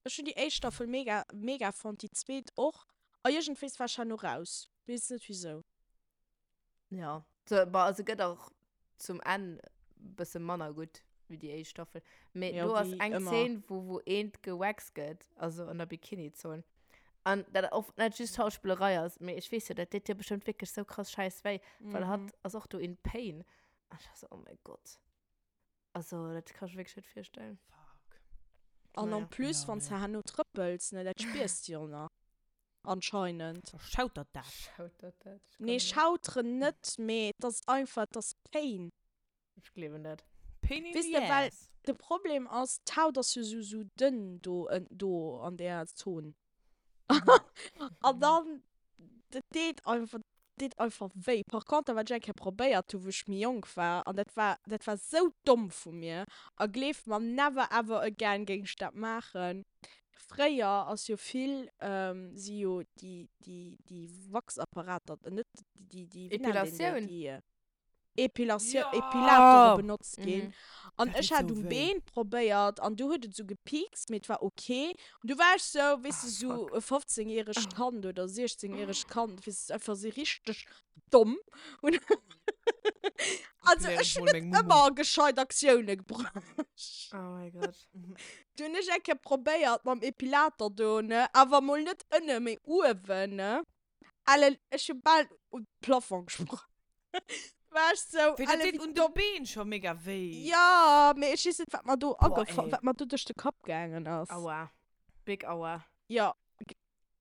Ech hunn déi éischt Staffel mega mega fonnt, déi zweet och. A iergendwéis war ech herno raus. Weess net wisou. Ja. So, bah, also gëtt och zum Enn bësse manner gutt wéi déi éischt Staffel. Mee Ja, do ass wéi eng ëmmer. Szene, wou, wou eent gewaxt gëtt, also an der Bikini-Zon. An dat och net just Schauspillerei ass, mee ech weess jo, dat deet jo bestëmmt wierklech sou krass schäiss wéi, well hatt ass och do in pain. An ech war sou, oh mäi Gott. Also, dat kann ech mir wierklech net virstellen. Fuck. An Naja. en plus, Ja, wann s nee. de herno trëppels, ne, dat spiers de jo nach. Anscheinend. Da schautert dat. Schautert dat? Ich Nee, kann net. schauteren net, mee et ass einfach, et ass Pain. Ech gleewen dat. Pain in Weess the de, well ass. de Problem ass, d'Haut ass jo sou, sou dënn do, do an där Zon. An dann, dat deet einfach, deet einfach wéi. Par conter, wat ech eng Kéier probéiert hu wou ech méi jonk war, an dat war, dat war sou domm vu mir, a gleeft mer, never ever again géing ech dat maachen. Fréier ass jo vill, si jo déi, déi, déi Wachsapparater, net déi, déi, wéi nennt een déi, Epilatioun? déi. Epilatioun, Ja! Epilatore benotzt ginn. Mhm. An Dat ech deet hat sou um wéi. Been probéiert an du huet et sou gepiekst, mee et war ok. An du war ech sou, weess Ah, de, sou fuck. e 15 järegt Kand oder 16 järegt Kand, weess de, einfach sou richteg domm. Und also Erklären ech ech hunn mol net meng Mumu. ëmmer gescheit Aktioune gebruecht. Oh my God. Du hunn ech eng Kéier probéiert mam Epilator do, ne, awer mol net ënne, mee uewen, ne. Ellen, ech hu bal un de Plafond gesprong. War ech sou, Wéi, dat Ellen, deet wéi un de domm. Been scho mega wéi. Ja, mee ech weess net, wat mer do Boah, agefall, ey. wat mer do duerch de Kapp gaangen ass. Aua. Big Aua. Ja,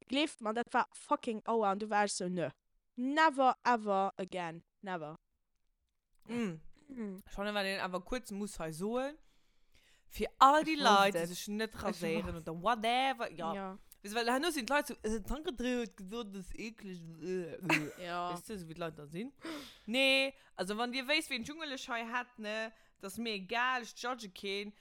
gleeft mer, dat war fucking Aua. An du war ech sou, nö. Never ever again. Never. Mm. Schon wat een awer kuerz muss hei soen, fir all déi Ech Leit, wosst déi et. sech net Ech raséieren wosst oder whatever, ja. Ja. Weess du, well herno sinn d'Leit sou, äh, d'Anne-Catherine huet gesot, dat ass eekleg, äh, äh. Ja. Weess du, sou wéi d'Leit da sinn. Nee, also wann dir wéisst, ween Dschungel ech hei hätt, ne, dat ass mir egal, ech judge keen.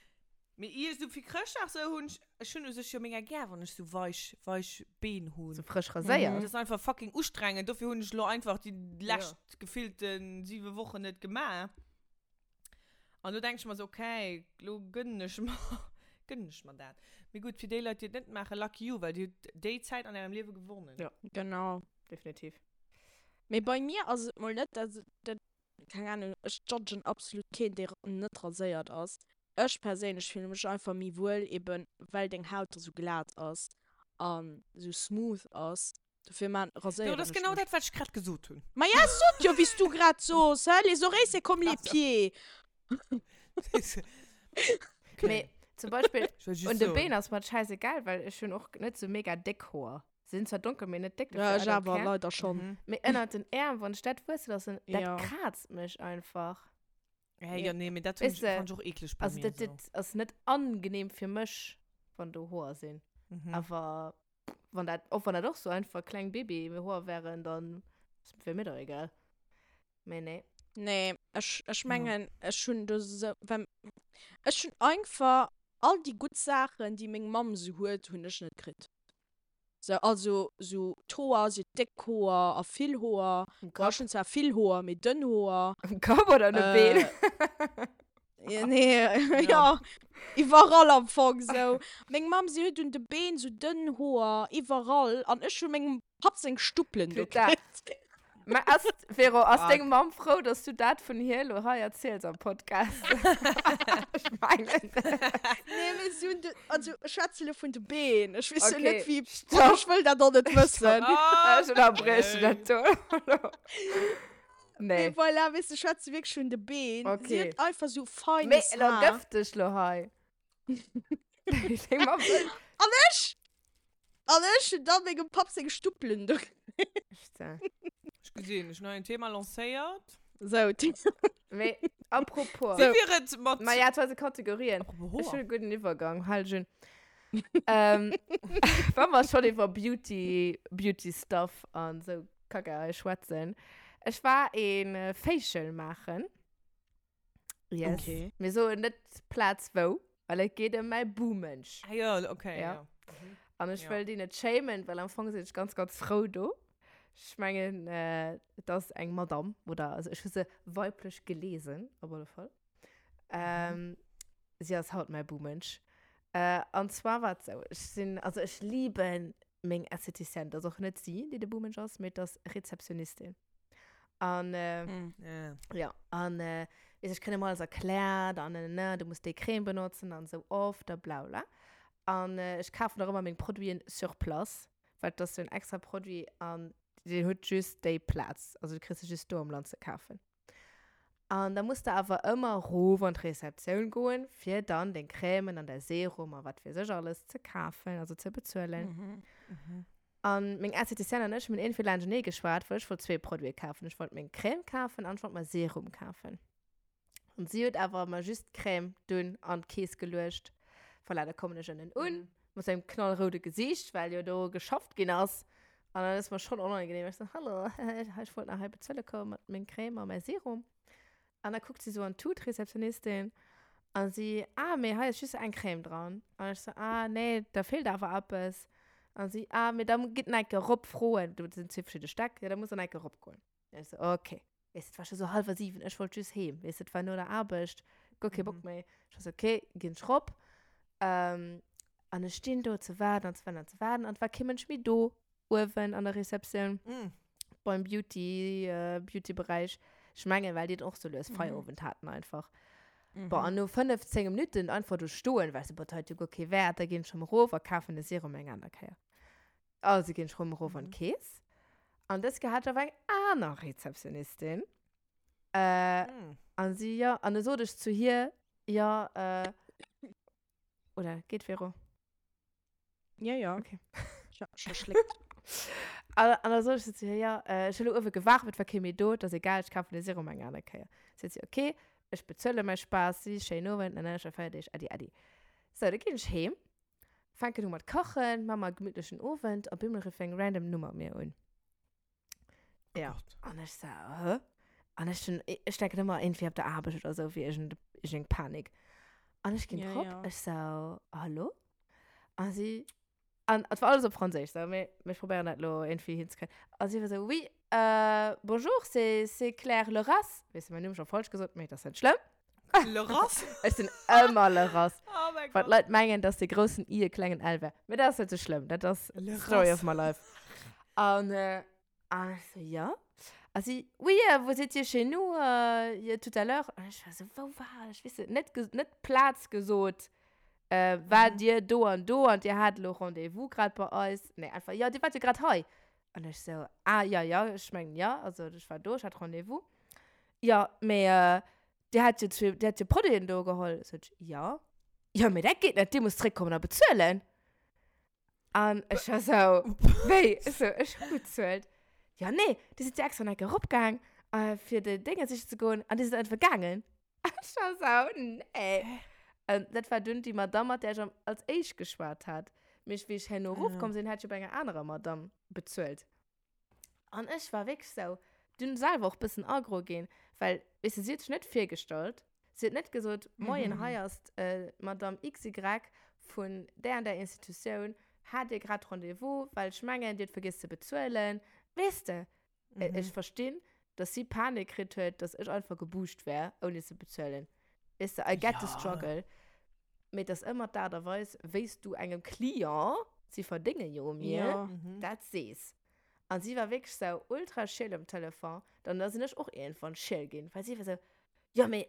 Mee ier sou fir Chrëschtdag sou hunn ech, ech hunn u sech jo mega gär, wann ech sou weich, weich Been hunn. Sou frësch raséiert. Dat ass einfach fucking ustrengend, dofir hunn ech lo einfach déi lescht gefillten 7 Wochen net gemaach. An lo denk ech mer sou, okay, lo gënnen ech mer, gënnen ech mer dat. Mee gutt, fir déi Leit, déi et net maachen, lucky you, well dir hutt déi Zäit an ärem Liewe gewonnen. Ja. Genau. Definitiv. Mee bei mir ass et mol net, dat, dat, keng Ahnung, ech judgen absolut keen, dee net raséiert ass. Ech perséinlech fillen mech einfach méi wuel, eben well deng Haut da sou glat ass an sou smooth ass. Dofir man Jo, raséieren dat ass ech genau mech. dat, wat ech grad gesot hunn. Ma ja, ech sot jo, wéi s du grad sos, hä? Les oreilles, c'est comme les pieds. Okay. Mee zum Beispill Ech wollt just un de soen. Been ass mer et schäisegal, well ech hunn och net sou mega déck Hoer. Se sinn zwar donkel, mee net déck, Ja, dofir ech I don't awer care. leider schonn. Mhm. Mee ënnert den Äerm, wann ech dat wuesse loossen, dat Ja. kraazt mech einfach. Hey, ja, nee, mee dat hunn Weess ech, de, fand ech och eekleg bei Also mir dat, esou. dat ass net angenehm fir mech, wann do Hoer sinn. Mhm. Awer wann dat, och wann dat och so einfach kleng Babyhoer wären, dann wär mir doch egal. Mee nee. Nee, ech, ech Ja. mengen, ech hunn do sou, well ech hunn einfach all déi gutt Saachen, déi meng Mamm sou huet, hunn ech net kritt. Sou, also sou d'Hoer, si huet déck Hoer a vill Hoer. Um Bon, Kapp? ech hunn zwar vill Hoer, mee dënn Hoer. Um Kapp oder un de Been? Äh, nee, ja, iwwerall am Fong sou. Meng Mamm, si huet un de Been sou dënn Hoer, iwwerall. An ech hu mengem Papp seng Stuppelen do Putain. kritt. Mä ass, Vero, ass Fuck. deng Mamm frou, dass du dat vun hir elo hei erziels am Podcast? Ech mengen net. Nee, mee si hunn de, also ech schwätze elo vun de Been. Ech weess jo Okay, net, wéi, stopp. ech wëll dat och net wëssen. Ah, Ech ënnerbrieche dat do elo. Nee, Nee. voilà, weess du, ech schwätze wierklech vun de Been. Si Okay. huet einfach sou Mee feines elo Haar. gëff dech lo hei. Deng Mamm wëll. An ech, an ech hunn dann mengem Papp seng Stuppelen do. Putain. Ech gesinn, ech hunn hei en Thema lancéiert. Sou. Mee apropos. Wéi wier et mat. Ma ja, zu eise Kategorien. Apropos Ech Hoer. hunn e gudden Iwwergang, hal dech un. Ähm, wa mer schonn iwwer Beauty, Beauty Stuff an esou Kacke hei schwätzen. Ech war een Facial maachen. Yes. Okay. Mir soen net d'Plaz wou, well et geet ëm mäi Buhmensch. Ah ja, okay, Ja. ja. Mhm. An ech Ja. wëll déi net shamen, well am Fong sinn ech ganz, ganz frou do. Ech mengen, äh, et ass eng Madame, oder also ech hu se weiblech gelesen, op alle Fall. Ähm, si ass haut mäi Buhmensch. Äh, an zwar war et sou, ech sinn, also ech liben meng Esthéticienne, et ass och net si, déi de Buhmensch ass, mee et ass Rezeptionistin. An, äh, Mm. Ja. ja, an äh, weess, ech kréien ëmmer alles erkläert an ne, ne, du muss déi Crème benotzen an sou oft a bla bla. An äh, ech kafen och ëmmer meng Produiten sur place, well dat ass sou en extra Produit an deen huet just déi Plaz, also du kriss se just do am Land ze kafen. An da muss de awer ëmmer erof an d'Rezeptioun goen, fir dann deng Crèmen an däi Serum a wat weess ech alles ze kafen, also ze bezuelen. Mhm. Mhm. An meng Esthéticienne an ech hunn iergendwéi laanschtenee geschwat, well ech wollt zwee Produite kafen. Ech wollt meng Crème kafen an ech wollt mer Serum kafen. An si huet awer mer just d'Crème dunn an d'Keess geluecht. Voilà, da kommen ech ënnen un, mat sou engem knallroude Gesiicht, well jo do geschafft ginn ass. An dann ass mer schonn onangenehm. Ech sou, Hallo, ech wollt nach hei bezuele kommen mat meng Crème a mäi Serum. An da kuckt si sou an d'Tut, d'Rezeptionistin, a si, Ah, mee hei ass just eng Crème dran. An ech sou, Ah, nee, da feelt awer eppes. An si, Ah, mee da gitt nach eng Kéier erop froen. Do sinn zwee verschidde Stäck, jo, da musst der nach eng Kéier eropgoen. An ech sou, Okay. Weess de, et war scho sou hallwer 7, ech wollt just heem, weess de, et war no der Aarbecht, guer kee Bock méi. Ech war sou, Okay, ginn ech rop. An ech stinn do ze waarden an ze waarden an ze waarden an et war kee Mënsch méi do. uewen an der Receptioun mm. beim Beauty, äh, Beauty-Bereich. Ech mengen, well déi och sou lues Feierowend mhm. haten einfach. Mhm. Boah, an no 15 Minuten einfach do stoen, weißt du, boah, dat huet jo guer kee Wäert, da ginn ech rëm erof a kafen de Serum eng aner Kéier. Also ginn ech rëm erof an mhm. d'Keess. An dës Kéier hat ech awer eng aner Rezeptionistin. Äh, mm. An si, ja, an da sot ech zu hir, ja, äh, oder geet Vero? Ja, ja. Okay. Ich hab schon schlickt. An, an da sot ech zu hir, ja, äh, ech hu lo uewe gewaart, et war kee méi do, et ass egal, ech kafen de Serum eng aner Kéier. Seet si, okay, ech bezuele mäi Spaass, si, schéinen Owend, ne, ne, ech feier Deeg, äddi, äddi. Sou, da ginn ech heem, fänken u mat kachen, maa mer e gemittlechen Owend, a bemol rifft eng random Nummer mir un. Ja. An ech so, hä? An ech hun, ech denken ëmmer irgendwie op der Aarbecht oder sou, wéi iergend, iergend Panik. An ech ginn Ja, drop, ja. ech so, hallo? A si, an et war alles op Franséisch, sou, mee ech probéieren dat lo irgendwie hinzekréien. A si war sou, oui, euh, bonjour, c'est, c'est Claire Leras. Weess de, mäin Numm scho falsch gesot, mee dat ass net schlëmm. Leras? Ech sinn ëmmer Leras. Oh mein Well Gott. d'Leit mengen, dass de groussen I e klengen L wär. Mee dat ass net sou schlëmm. Dat ass Leras. Story of my life. An, äh, an ech so, ja. A si, oui, euh, vous étiez chez nous euh, tout à l'heure. An ech war sou, wou war ech? Weess de, net, net d'Plaz gesot. Äh, war Mhm. dir do an do an dir hat elo Rendez-vous grad bei eis? Nee, einfach, ja, dir wart jo grad hei. An ech sou, ah, ja, ja, ech mengen, ja, also ech war do, ech hat Rendez-vous. Ja, mee äh, dir hat jo zwee, dir hat jo Produiten do geholl. Sot ech, ja. Ja, mee dat geet net, dir musst zréckkommen a bezuelen. An ech war sou, wéi? Ech sou, ech hu bezuelt. Ja, nee, dir sidd jo extra nach eng Kéier eropgaang, äh, fir de Dénge siche ze goen an dir sidd einfach gaangen. Ech war sou, nee. An dat war dunn déi Madame, mat där ech am, als éischt geschwat hat. Mee ech, wéi ech herno erofkomm sinn, hat ech jo bei enger anerer Madame bezuelt. An ech war wierklech sou, dunn selwer och bëssen aggro ginn, well, weess de, si huet sech net virgestallt. Si huet net gesot, Moien, hei ass d'Madame XY vun där an där Institutioun, hat Dir grad Rendez-vous, well ech mengen, Dir hutt vergiess ze bezuelen. Weess de? Ech verstinn, dass si Panik kritt huet, dass ech einfach gebucht wär, ouni ze bezuelen. Weess de, I get the struggle. Mee et ass ëmmer d'Aart a Weis, wéi s du engem Client, si verdénge jo u mir, dat sees. An si war wierklech sou ultra schiel um Telefon. Dann da sinn ech och iergendwann schiel ginn, well si war sou, Jo, mais,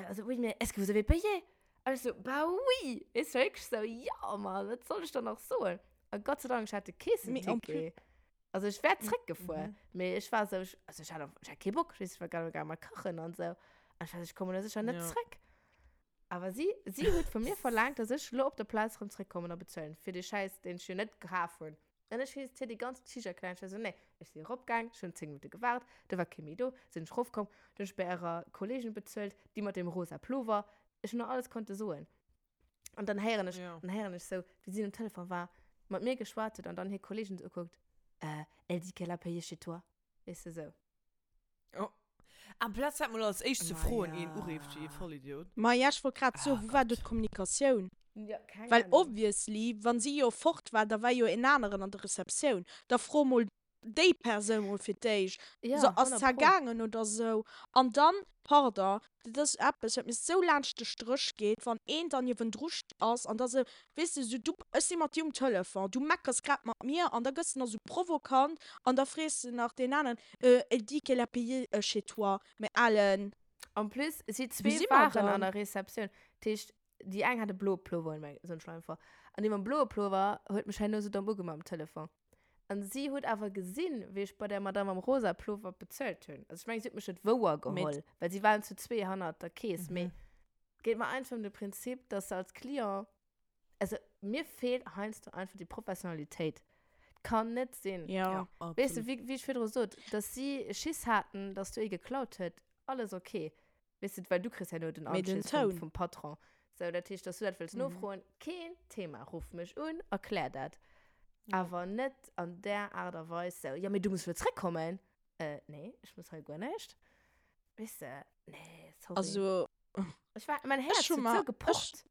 also oui, mais est-ce que vous avez payé? An ech sou, Bah oui! Weess du, wierklech sou, Jo, Mann, wat soll ech dann nach soen? A Gott sei Dank, ech hat de Keessenticket. Also ech wär zréckgefuer, mee ech war sou, also ech hat einfach, ech hat kee Bock, weess du, ech war grad gaange mat kachen an sou. An ech war sou, ech kommen elo sécher net zréck. Awer si, si huet vu mir verlaangt, dass ech elo op der Plaz erëm zréckkommen a bezuelen fir dee Schäiss, deen ech jo net kaf hunn. An ech hues hir déi ganz Geschicht erkläert. Ech war sou, nee, ech si eropgaang, ech hunn 10 Minutte gewaart, do war kee méi do, sinn ech erofkomm, du hunn ech bei ärer Kolleegin bezuelt, déi mat deem rosa Plover. Ech hunn der alles konnte soen. An dann héieren ech, dann héieren ech sou, wéi si um Telefon war, mat mir geschwat huet an dann hir Kolleegin sou ukuckt, Euh, elle dit qu'elle a payé chez toi. Weess de, sou. Oh. Amplaz dat mol als éischt ze Ma froen, ja. een urift wéi ee Vollidiot. Ma ja, ech wollt grad soen, Ah wou war do Gott. d'Kommunikatioun? Ja, keng Well Ahnung. obviously, wann si jo fort war, da war jo een aneren an der Receptioun. Da fro mol déi Persoun mol fir d'éischt, Ja, so, ass 100 pro. zergaangen oder sou. An dann, pardon, dat ass eppes, wat mir sou laanscht de Stréch geet, wann een dann niewendru ass an da sou, weess de, sou du, ech si mat dir um Telefon, du meckers grad mat mir an da gëss de nach sou provokant an da frees de nach deen aneren, euh, elle dit qu'elle a payé chez toi, mä alen. En plus, si Wou zwee si mer waren an dann? der Receptioun. Dat heescht, déi eng hat e bloe Plover un, meng, soen ech lo einfach. An déi mam bloe Plover huet mech herno sou domm ugemaach um Telefon. An si huet awer gesinn, wéi ech bei der Madame am rosa Plover bezuelt hunn. Also ech mengen, si huet mech net wouer geholl, well si waren zu zwee hannert der Kees. Mee et geet mer einfach ëm de Prinzip, dass se als Client, also mir feelt heiansdo einfach déi Professionalitéit. Et kann net sinn. Ja. Weess de, wéi, wéi ech virdru sot, dass si Schiss haten, dass do ee geklaut huet, alles ok. Weess de, well du kriss herno den Mee den Anschiss vum, Toun. vum Patron. Sou, dat heescht, dass du dat wëlls nofroen, keen Thema. Ruff mech un, erklär dat. Awer net an där Aart a Weis sou, jo, mee du muss elo zréckkommen. Äh, nee, ech muss hei guer näischt. Weess de, nee, sorry. Also, Ech war, mein Häerz ech hu huet mer, sou ech, gepocht.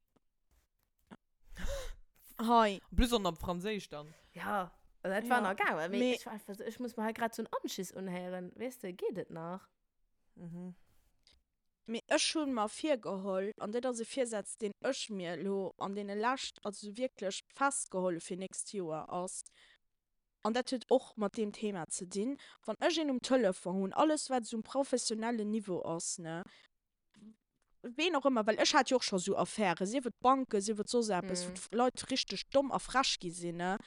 hei. En plus och nach op Franséisch dann. Ja, also dat war Ja, nach gaangen, mee mee. ech war einfach sou, ech muss mer hei grad sou en Anschiss unhéieren, weess de, geet et nach? Mhm. Mee ech hu mer virgeholl, an dat ass e Virsaz, deen ech mir elo an deene lescht, also wierklech festgeholl hu fir nächst Joer, ass, an dat huet och mat deem Thema ze dinn, wann ech een um Telefon hunn, alles wat esou um professionellen Niveau ass, ne, ween och ëmmer, well ech hat jo och scho sou Affären, sief et Banken, sief et soss eppes, wou d'Leit richteg domm a frech gi sinn, ne,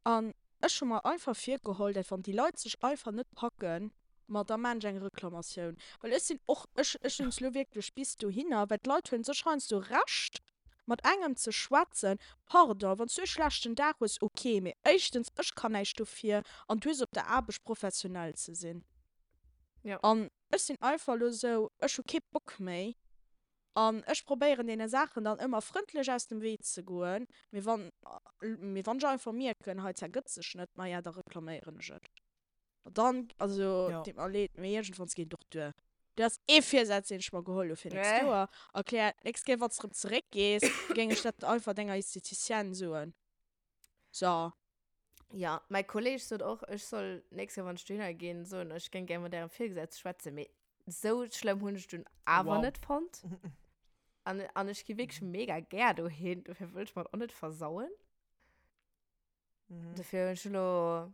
an ech hu mer einfach virgeholl, dat wann déi Leit sech einfach net packen, ma da maan ech eng Reklamatioun, well ech sinn och, ech, ech hunn es lo wierklech bis dohinner, well d'Leit huelen sech heiansdo Recht mat engem ze schwätzen, pardon, wann s du e schlechten Dag hues, ok, mee éischtens, ech kann näischt dofir an du hues op der Aarbecht professionell ze sinn. An Ech sinn einfach elo esou, ech hu kee Bock méi an ech probéieren deene Saachen dann ëmmer frëndlech aus dem Wee ze goen, mee wann, mee wann ech einfach mierken, hei zergëtt sech net, maja da reklaméieren ech et. Dann, also Ja. deet mer leed, mee iergendwanns geet et och duer. Dat ass ee Virsaz deen ech mer geholl hu fir nächst Joer. Erklär, d'nächst Kéier wann s de erëm zeréckgees, géing ech dat einfach denger Esthéticienne soen. So. Ja, mäi Kolleg sot och, ech soll nächst Kéier, wann ech dohinner ginn, soen, ech géing gär mat ärem Virgesetzte schwätzen. Mee sou schlëmm hunn ech dunn awer Wow. net fonnt. An, an ech gi wierklech mega gär dohin, dofir wëll ech mer et och net versauen. Mhm. Dofir hunn ech elo,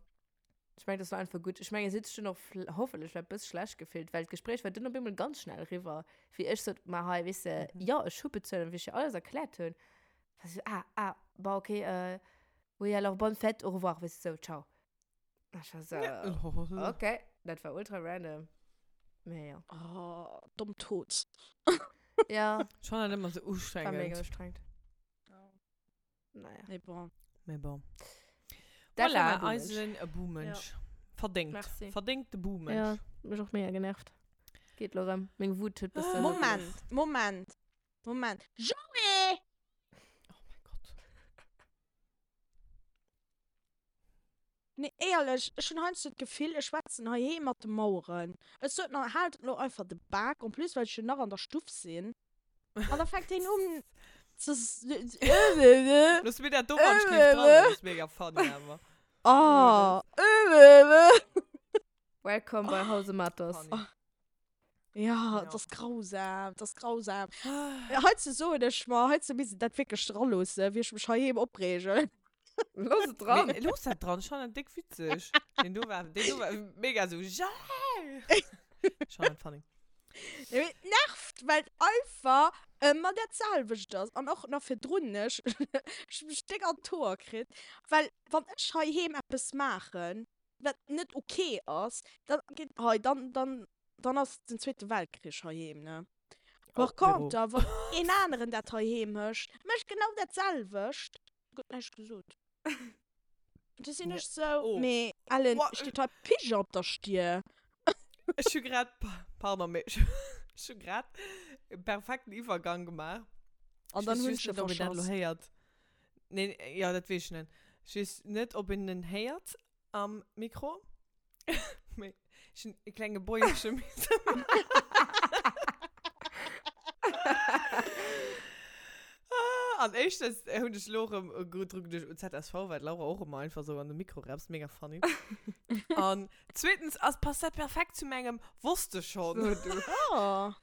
ech mengen, dat war einfach gutt. Ech mengen, si huet sech dunn och vl- hoffentlech vläicht e bësse schlecht gefillt, well d'Gespréich war dunn op eemol ganz schnell eriwwer, wéi ech sot, ma hei, weess de, jo, ech hu bezuelt an wéi ech hir alles erkläert hunn, war si sou, ah, ah, bon, okay, äh, Oui, alors bonne fête, au revoir, weißt du, so, ciao. Ech war so, okay, dat war ultra random. Mee ja. Oh, domm Tod. Ja. Schon halt immer so War mega ustrengend. ustrengend. Naja. Mee bon. Mee bon. Dat war Voilà, mein Buhmensch. eisen Buhmensch. Verdéngt. Merci. Verdéngte Buhmensch. Ja, mech och mega genervt. Geet lo rëm. Meng Wut huet bëssen. Moment, Moment, Moment. Joé! Oh mein Gott. Nee, éierlech, ech hunn heiansdo d'Gefill, ech schwätzen heiheem mat de Maueren. Ech sot nach, haalt elo einfach de Bak, en plus well ech jo nach an der Stuff sinn. An da fänkt hien un ze. Looss mir dat do wann ech géif dran, dat ass mega funny awer. Oh. Welcome bei Hause Matos. Funny. Ja, et ass grausam, et ass grausam. Heizou soen ech mer, heizou misst een dat wierklech dra loossen, wéi ech mech heiheem opreegen. Looss et dran! Mee looss dat dran, ech fannen dat déck witzeg. Deen do war, deen do war mega sou, Jael! Ech fannen dat funny. Nee, mee et nervt, well et einfach ëmmer dat selwecht ass. An och nach virdrun, ech ech hu mech déck an d'Hoer kritt, well wann ech heiheem eppes maachen, wat net ok ass, dann geet hei, dann, dann, dann ass den Zweete Weltkrich heiheem, ne? Par Oh, Véro. contre, wann een aneren dat heiheem mécht, mécht genau dat selwecht, gëtt näischt gesot. Du sinn ech sou, Oh. mee Ellen, Boah, steet hei Pigeon op der Stier? Ech hu grad, pardon, mee ech hu grad e perfekten Iwwergang gemaach. An dann Ech hunn weess ech just e net, ob een dat elo verschass. héiert. Nee, jo, dat weess ech net. Ech weess net, ob een en héiert am Mikro. Mee ech hunn e klenge Bäuerche misse maachen. An éischtens hunn ech elo erëm dru geduecht un ZSV, well d'Laura och ëmmer einfach esou an de Mikro rapst. Mega funny. An zweetens ass, passt dat perfekt zu mengem Wosst de schonn. So, du. Oh.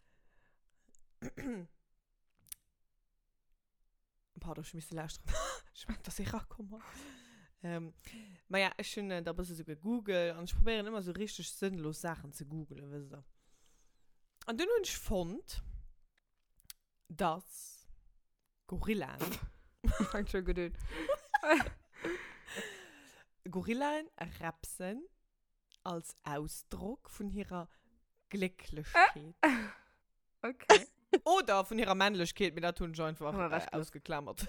Pardon, ech hu misse lauschteren. Ech mengt, dass ee rakomm ass. Ähm, ma ja, ech hunn da e bësse sou gegoogelt an ech probéieren ëmmer sou richteg sënnlos Saachen ze googelen, wësst der. An dunn hunn ech fonnt, dass Gorillaen. Fänkt scho gutt un. Gorillaen repsen als Ausdrock vun hirer Glécklechkeet. Okay. Oder vun hirer Männlechkeet, mee dat hunn ech einfach Hu mer äh, ewechgelooss. ausgeklamert.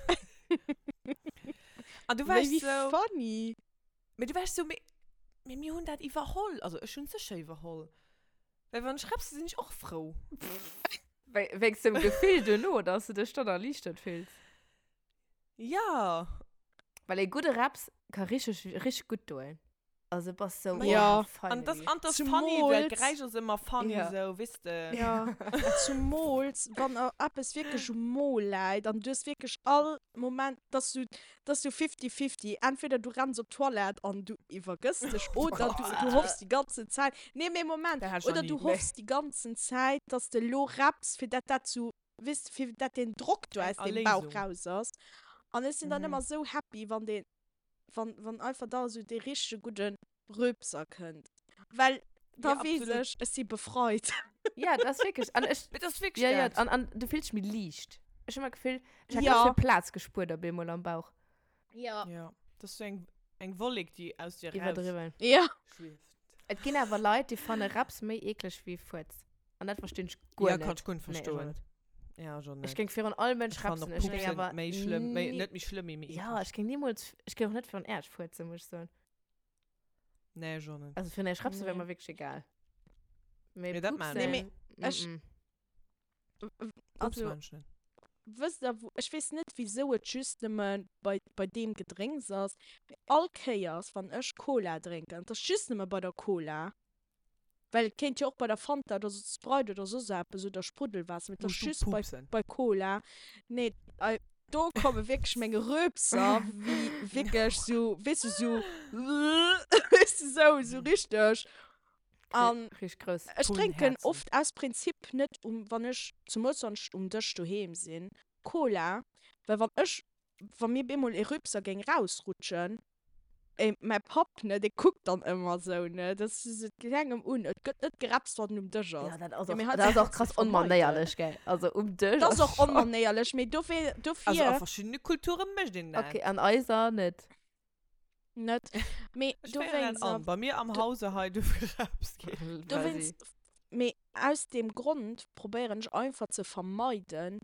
An du Mee warst wéi so, funny. mee du warst so, mee, mee mir hunn dat iwwerholl. Also ech hunn et sécher iwwerholl. Well wann ech repse, sinn ech och frou. Wéi, wéinst dem Gefill duerno, dass du dech dann erliichtert fills. Ja. Well ee gudde Reps ka richteg, richteg gutt doen. Also bass sou, Ma oh, ja. An das, finally. an das funny, well Zumools, d'Geräisch ass ëmmer funny Ja. sou, weess de. ja, zumools wann a eppes wierklech um Mo läit an du hues wierklech all Moment, dass du, dass du fifty-fifty, entweder du renns op d'Toilette an du iwwergëss dech oder du, du hoffs déi ganzen Zäit, nee mee Moment, Dat hat ech nach oder ni. du hoffs déi ganzen Zäit, dass de lo repps, fir dat dat sou weess de, fir dat den Drock do Eng aus dem Bauch Erléisung. raus ass. An ech sinn dann Mhm. ëmmer sou happy, wann deen, wann, wann einfach da sou dee richtege gudde Röpser kënnt. Well da Ja, weess absolut. ech, ech si befreit. Ja, dat ass wierklech. An ech, Mee dat ass wierklech ja, ja, dat. an, an du fills dech méi liicht. Ech hu ëmmer d'Gefill, ech hätt Ja. ganz vill Plaz gespuert op eemol am Bauch. Ja. Ja, dat ass sou eng, eng Wollek, déi aus dir raus Iwwerdriwwen. Ja. schwieft. Et ginn awer Leit, déi fanne Reps méi eekleg wéi Fuerz. An dat verstinn ech guer Ja, net. kann ech guer net Nee, ech och verstoen. net. Ja, ech och net. Ech géing virun all Mënsch Ech fannen repsen. och Ech géing Pupsen awer méi schlëmm, méi, ni net méi schlëmm, mee méi Ja, eekleg. ech géing nimools, ech géing och net virun Äerch fuerzen, muss ech soen. Nee, ech och net. Also virun Äerch repsen wär Nee. mer wierklech egal. Mee Nee, dat maan Nee, ech. mee pupsen, ech, mm-mm. Pups also, maan ech net. wësst der, wou, ech weess net, wisou et just nëmme bei, bei deem Gedrénks ass, mee all Kéiers, wann ech Cola drénken, et ass just nëmme bei der Cola, Well et kéint jo och bei der Fanta oder Sprite oder soss eppes oder Spruddelwaasser, mee et ass Muss du just bei, pupsen? bei Cola. Nee, ei, do komme wierklech meng Röpser, wéi wierklech sou, weess du, sou, weess du, sou, sou richteg. An Richteg grouss. ech Vun drénken Häerzen. oft aus Prinzip net um, wann ech, zemools wann ech um Dësch doheem sinn, Cola, well wann ech, wa mir bemol ee Rüpser géing rausrutschen, Ey, mäi Papp, ne, dee kuckt dann ëmmer sou, ne, dat ass sou, et geet engem un, et gëtt net gerepst, wann en um Dësch ass. Ja, dat ass Ja, och, mee hei dat ass och kanns du krass et vermeiden. onmanéierlech, gell? Also um Dësch Dat ass ass och schon. onmanéierlech, mee dofir, Also dofir a verschiddene Kulture mécht een dat. Okay, an eiser net. net, mee Ech féieren dat dowéinst, an. Bei mir am do, Hause hei duerf gerepst ginn. Quasi. dowéinst, mee aus deem Grond probéieren ech einfach ze vermeiden,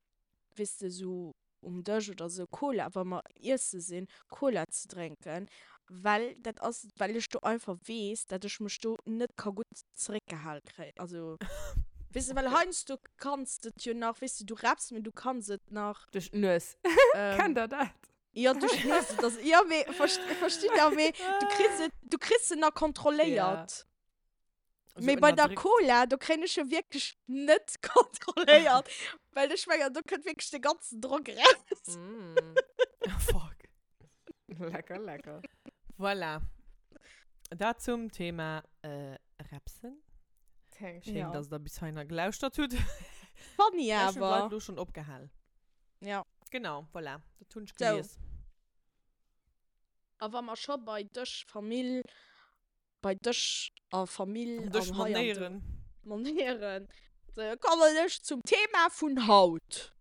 weess de, sou um Dësch oder sou Cola, wa mer iesse sinn, Cola ze drénken, well dat ass, well ech do einfach weess, dat ech mech do net ka gutt zeréckgehal kréien. Also. Weess de, well heiansdo kanns de et jo nach, weess de, du räpps, mee du kanns et nach. Duerch d'Nues. Kennt der dat? Jo, duerch d'Nues, et ass, jo, mee verstitt der, mee du kriss et, du kriss se nach kontrolléiert. So Mee bei der ënnerdréckt. Cola, do kréien ech jo wierklech net kontrolléiert, well ech mengen, do kënnt wierklech de ganzen Drock raus. Mm. Fuck. Lecker, lecker. Voilà. Dat zum Thema äh, Repsen. Thanks. Schéin, Ja. dass der bis heihinner gelauschtert hutt. Funny Ech hunn d'Leit awer. lo schon opgehal. Ja. Genau, voilà. Dat hunn ech So. gelies. A wa mer scho bei Dësch, Famill, bei Dësch a Famill An Dësch an hei an do Manéieren. Manéieren, so kommen ech zum Thema vun haut.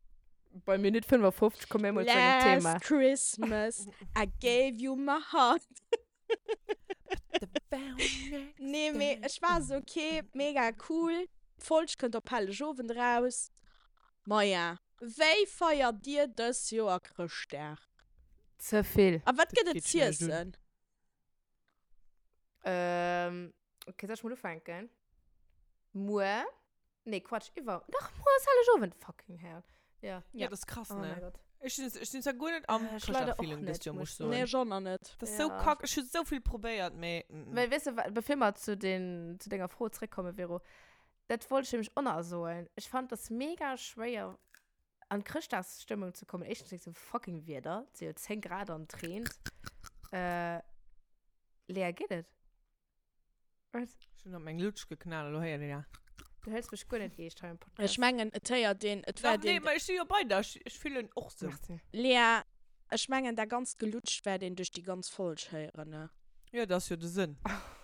Bei Minutt 55 komme mir mol zu engem Thema. Last Christmas I gave you my heart. Nee, mee ech war esou, okay, mega cool, d'Folg kënnt op Hellegowend eraus. Maja, wéi feiert dir dës Joer Chrëschtdag? Ze vill. A wat Dat gëtt et geet schlecht un. z'iessen? Ähm, okay, soll ech mol ufänken? Muer, nee, Quatsch, iwwer, dach, muer ass Hellegowend, fucking hell. Ja. Ja, dat ass krass, Oh ne? mein Gott. Ech sinn, ech sinn zwar guer net am Äh, ech leider och Chrëschtdag-Feeling net, dëst Joer, muss muss ech ech soen. Nee, ech och nach net. Dat ass sou Ja. kack. Ech hu sou vill probéiert, mee mm. Well, weess de, wa- bevir mer zu den, zu denger Fro zréckkommen, Vero, dat wollt ech nämlech och nach soen. Ech fand das mega schwéier, an Chrëschtdagsstëmmung ze kommen. Éischtens wéinst dem fucking Wieder. Et si jo 10 Grad an et reent. Äh, Lea, geet et? Wat? Ech hunn op meng Lutsch geknallt, elo héiert een ja. Du hëls mech guer net eescht hei am Podcast. Ech mengen, et héiert een, et Dach, wäert nee, een. ma ech si jo bei der. Ech, ech fillen och sou. Merci. Lea, ech mengen, dat ganzt Gelutscht wäert een duerch déi ganz Folg héieren, ne? Jo, dat ass jo de Sënn.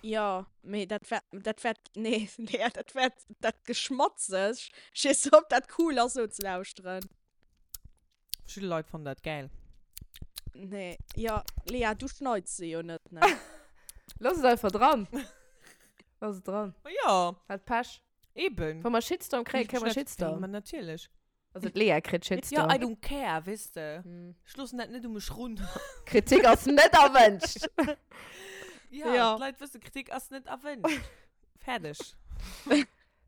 Jo, mee dat wär, dat wäert, nee, Lea, dat wäert, dat Geschmatzeg, ech weess net, ob dat cool ass, sou ze lauschteren. Verschidde Leit fannen dat gäil. Nee, jo, Lea, du schneits se jo net, ne? Looss et einfach dran. Looss et dran. Ma jo, Hat Pech. eben. Wa mer Shitstorm kréien, kréie mer Shitstorm. Ma natierlech. Also d'Lea kritt Shitstorm. Ja, I don't care, weess de. Hm. Ech loossen dat net u mech run. Kritik ass net erwënscht. Ja, Ja. d'Leit wëssen, Kritik ass net erwënscht. Fäerdeg.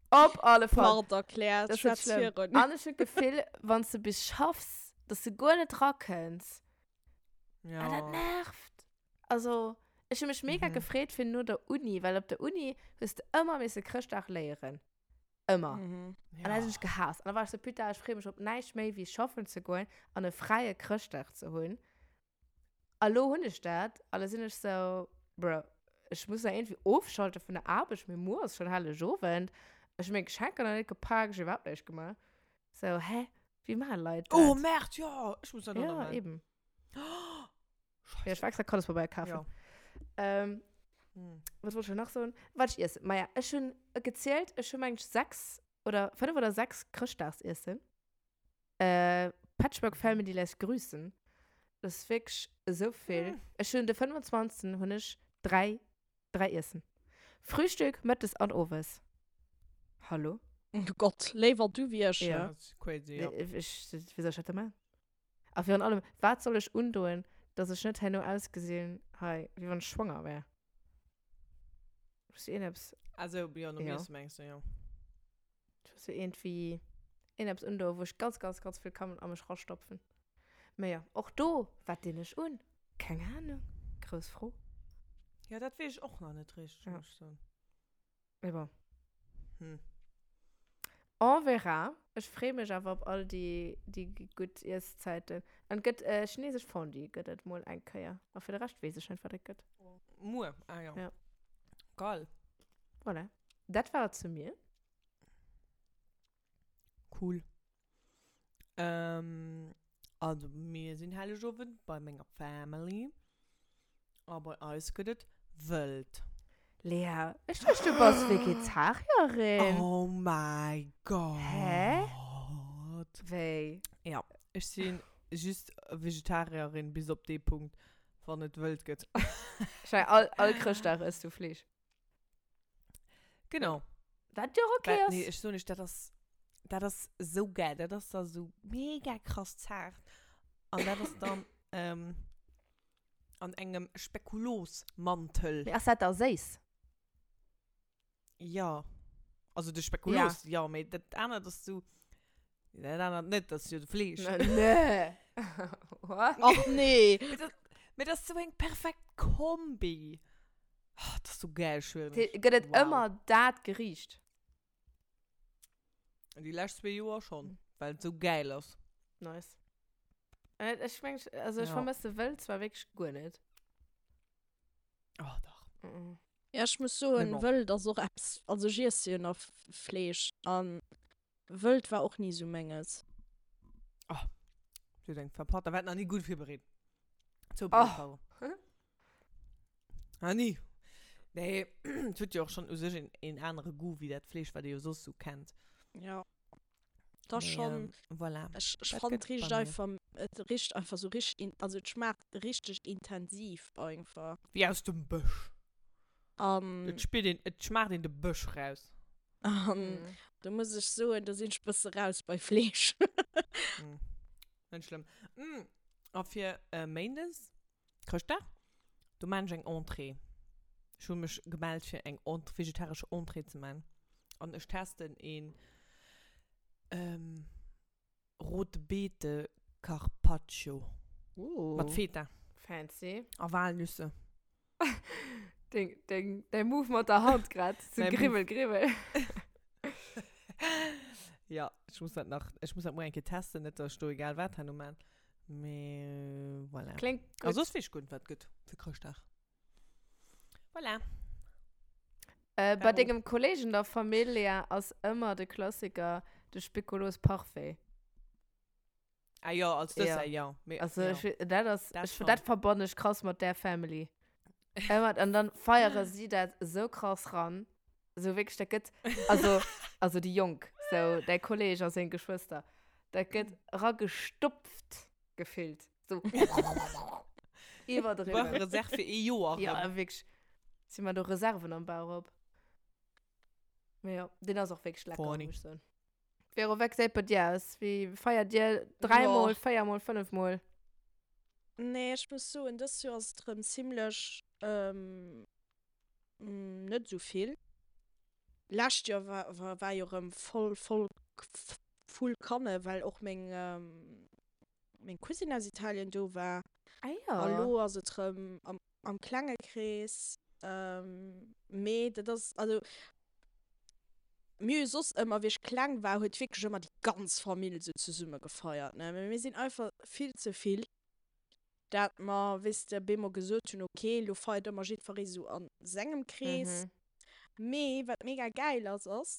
Op alle Fall. Mord erkläert, Das ist schwätz schlimm. virun. An ech hunn d'Gefill, wann s de bis schaffs, dass du guer net rakënns. Ja. An dat nervt. Also, ech hu mech mega Mhm. gefreet fir no der Uni, well op der Uni hues de ëmmer misse Chrëschtdag léieren. Ëmmer. Mhm. An dat hunn ech gehaasst. An da war ech sou, putain, ech freeë mech op näischt méi, wéi schaffen ze goen an e fräie Chrëschtdag ze hunn. A lo hunn ech dat, a lo sinn ech sou, Bro, ech muss nach iergendwéi ofschalte vun der Aarbecht, mee muer ass schonn Hellegowend, ech hu meng Geschenker nach net gepak, ech hu iwwerhaapt näischt gemaach. Sou, hä, wéi maache Leit dat? Oh, Merde, jo, ech muss dat och nach Ja, maachen. eben. Scheiße. Ja, ech war extra Kandespabeier kafen. Ja. Ähm, Hm. wat wollt ech nach soen? Wat ech iessen? Maja, ech hunn gezielt, ech hu mengt 6 oder 5 oder 6 Chrëschtdagsiessen. Äh, Patchwork Family lässt grüßen. Das ist wirklich so viel. Hm. Ech hunn de 25. hunn ech 3, 3 Iessen. Frühstück, Mëttes an Owes. Hallo? Oh Gott, léiwer du wéi ech, Ja. ne? Das ist crazy, ja. Ech, wéi soll ech dat da maachen? A virun allem, wat soll ech undoen, dass ech net herno ausgesinn hei, wéi wann ech schwanger wär? Muss iergendeppes, Also, ja, nom Ja. Iessen mengst du, ja. ech muss jo iergendwéi iergendeppes undoen, wou ech ganz, ganz, ganz vill kann a mech rastopfen. Mä jo, och do, wat dinn ech un? Keng Ahnung. Grouss Fro. Ja, dat weess ech och nach net richteg, Ja. muss ech soen. Mee bon. Hm. On verra. Ech freeë mech awer op all déi, déi gutt Ieszäiten. An et gëtt äh, chinesesch Fondue gëtt et mol eng Kéier. A fir de Rescht weess ech net, wat et gëtt. Muer, ah ja. Ja. Geil. Voilà. Dat war et zu mir. Cool. Ähm, also mir sinn Hellegowend bei menger Family. A bei eis gëtt et wëld. Lea, ech duecht du bass Vegetarierin. Oh mäi Gott. Hä? Wéi? Ja, ech si just Vegetarierin bis op dee Punkt, wann et wëld gëtt. Schei, all, all Chrëschtdag ëss du Fleesch. Genau. Wat jo och okay Well, ass. nee, ech soen iech, dat ass, dat ass esou geil. Dat ass da sou mega krass zaart. An dat ass dann ähm, an engem Spekulosmantel. Mee ass dat da séiss? Ja. Also de Spekuloos, ja, ja mee dat anert ass sou, dat anert net, dat ass jo de Fleesch. Nee. What? Ach nee. Mee dat, mee dat ass sou eng perfekt Kombi. Oh, dat ass sou geil, schwören ech. Gëtt et Wow. ëmmer dat Geriicht? Déi lescht zwee Joer schonn, well et sou geil ass. Nice. Äh, ech meng, also ech Ja. vermësse Wëld zwar wierklech guer net. Oh, dach. Mm -mm. Ja, ech muss soen, Mee bon. Wëld ass och eppes, also ech iesse jo nach Fleesch an Wëld war och ni sou menges. Oh, du hues eng verpasst. Da war et nach ni gutt virbereet. Zoubereet, Oh. pardon. Ah, ni. Nee, et huet jo och schonn u sech een, een anere Goût wéi dat Fleesch, wat ee jo soss sou kennt. Ja. Da Mee, schonn. ähm, voilà. Ech, ech Dat fannen, gëtt et richt bei mir. einfach, et richt einfach sou richteg, in, also et schmaacht richteg intensiv einfach. Wéi aus dem Bësch. An. Et spiert een, et schmaacht een de Bësch raus. An Mhm. do muss ech soen, do sinn ech bësse raus bei Fleesch. Mm. Net schlëmm. Mm. A fir äh, Méindes, Chrëschtdag, do maan ech eng Entrée. Ech hu mech gemellt fir eng Ent vegetaresch Entrée ze maan. An ech testen een ähm, Rote Beete Carpaccio. Uh. Mat Feta. Fancy. A Walnüsse. Deng, deng, däi Move mat der Hand grad. So Mäi Move. gribbel, gribbel. Ja, ech muss dat nach, ech muss dat muer eng Kéier testen, net dass ech do egal wat herno maan. Mee voilà. Kléngt A gutt. soss weess ech guer net, wat gëtt fir Chrëschtdag. Voilà. Äh, bei Caro. dengem Kollegen der Familia ass ëmmer de Klassiker de Speculoos Parfait. Ah jo, als Ja. Dessert, jo. Mee, Also jo. ech, dat ass, Dat ech, schon. dat verbannen ech krass mat där Family. Ëmmer, an dann feiere si dat esou krass ran. Esou wierklech, dat gëtt, also, also déi Jonk, sou däi Kolleg a seng Geschwëster, dat gëtt eragestopft gefillt. Sou iwwerdriwwen. Brauche Reserve fir ee Joer Ja, erëm. wierklech. Si man do Reserven am Bauch op. Mee jo, deen ass och wierklech lecker, Funny. muss ech soen. Vero, wéi gesäit bei dir aus? Wéi feiert dir? Dräimol, véiermol, fënnefmol? Nee, ech muss soen, dëst Joer ass et erëm zimlech net esou vill. Lescht Joer war, war, war jo erëm voll, voll, full Kanne, well och meng, meng Cousine aus Italien do war. Ah jo. A lo ass et erëm am, am klenge Krees. Mee dat ass, also mir hu soss ëmmer, wéi ech kleng war, huet wierklech ëmmer déi ganz Famill esou zesumme gefeiert, ne. Mee mir sinn einfach vill ze vill, dat mer, weess de, bemol gesot hunn, ok, elo feiert ëmmer jiddweree esou a sengem Krees. Mee wat mega gäil ass, ass,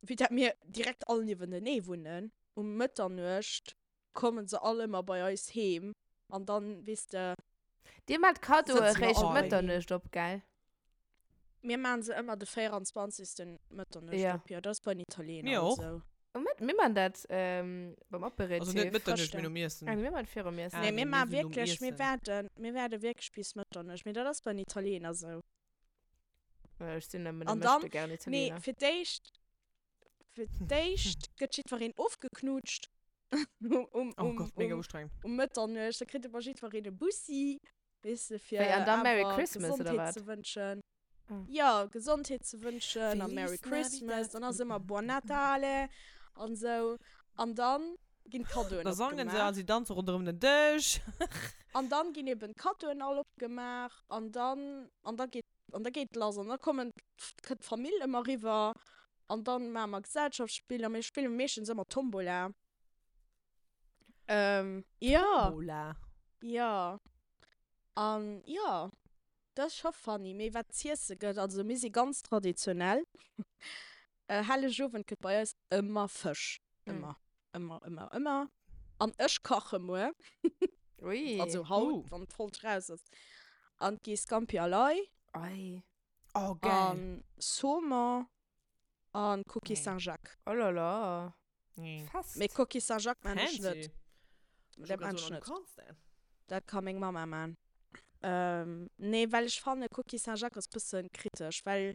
vue dat mir direkt all niewentenee wunnen, um Mëtternuecht kommen se all ëmmer bei eis heem an dann, weess de. Dir maacht Kaddoe Sëtzen mer réischt all Mëtternuecht op, gell? Mir maachen se ëmmer de 24. Mëtternuecht Ja. op, jo. Dat ass bei den Italiener Mir och. esou. Oh, mir, mir maachen dat ähm, beim Aperitif. Also net Mëtternuecht, mee nom Iessen. Ah, mir maachen virum Iessen. Ah, Nee, nee, mir mir maachen sinn nom wierklech, mir Iessen. waarden, mir waarde wierklech bis Mëtternuecht. Mee dat ass bei den Italiener esou. Ech sinn nëmmen e An dann, Möchtegern nee, Italiener. fir d'éischt, fir d'éischt gëtt jiddwereen ofgeknutscht um, um, Oh um, Gott, mega um, ustrengend. um Mëtternuecht. Da kritt ëmmer jiddwereen e Bussi, weess de, fir Wéi, an dann Merry awer Christmas, oder Gesondheet wat? ze wënschen. Ah. Ja, Gesondheet ze wënschen a Feliz Merry Christmas. Navidad. Dann ass ëmmer Buon Natale an esou. An dann ginn d'Kaddoen Da sangen se opgemaach. a si danze ronderëm den Dësch. An dann ginn eben d'Kaddoen all opgemaach an dann, an da geet An da geet et lass an da kommen, kënnt d'Famill ëmmer eriwwer an dann maache mer Gesellschaftsspiller. Mir spille meeschtens ëmmer Tombola. Ähm, jo. Tombola? Jo. An jo, dat ass scho funny. Mee wat z'iesse gëtt, also mir si ganz traditionell. Hellegowend gëtt bei eis ëmmer Fësch. Ëmmer, ëmmer, ëmmer, ëmmer. An ech kache muer. Ui. Also haut, Uh. wann d'Folg raus ass. An et gi Scampi al Ai. Ei. Oh, geil. An Saumon. An Coquille Nee. Saint-Jacques. Oh là là. Nee. Fest. Mee Coquille Saint-Jacques maan ech net. Fancy. Dat maan ech Du net. kanns dat. Dat ka meng Mama maan. Ähm, nee, well ech fanne Coquille Saint-Jacques ass bëssen kritesch, well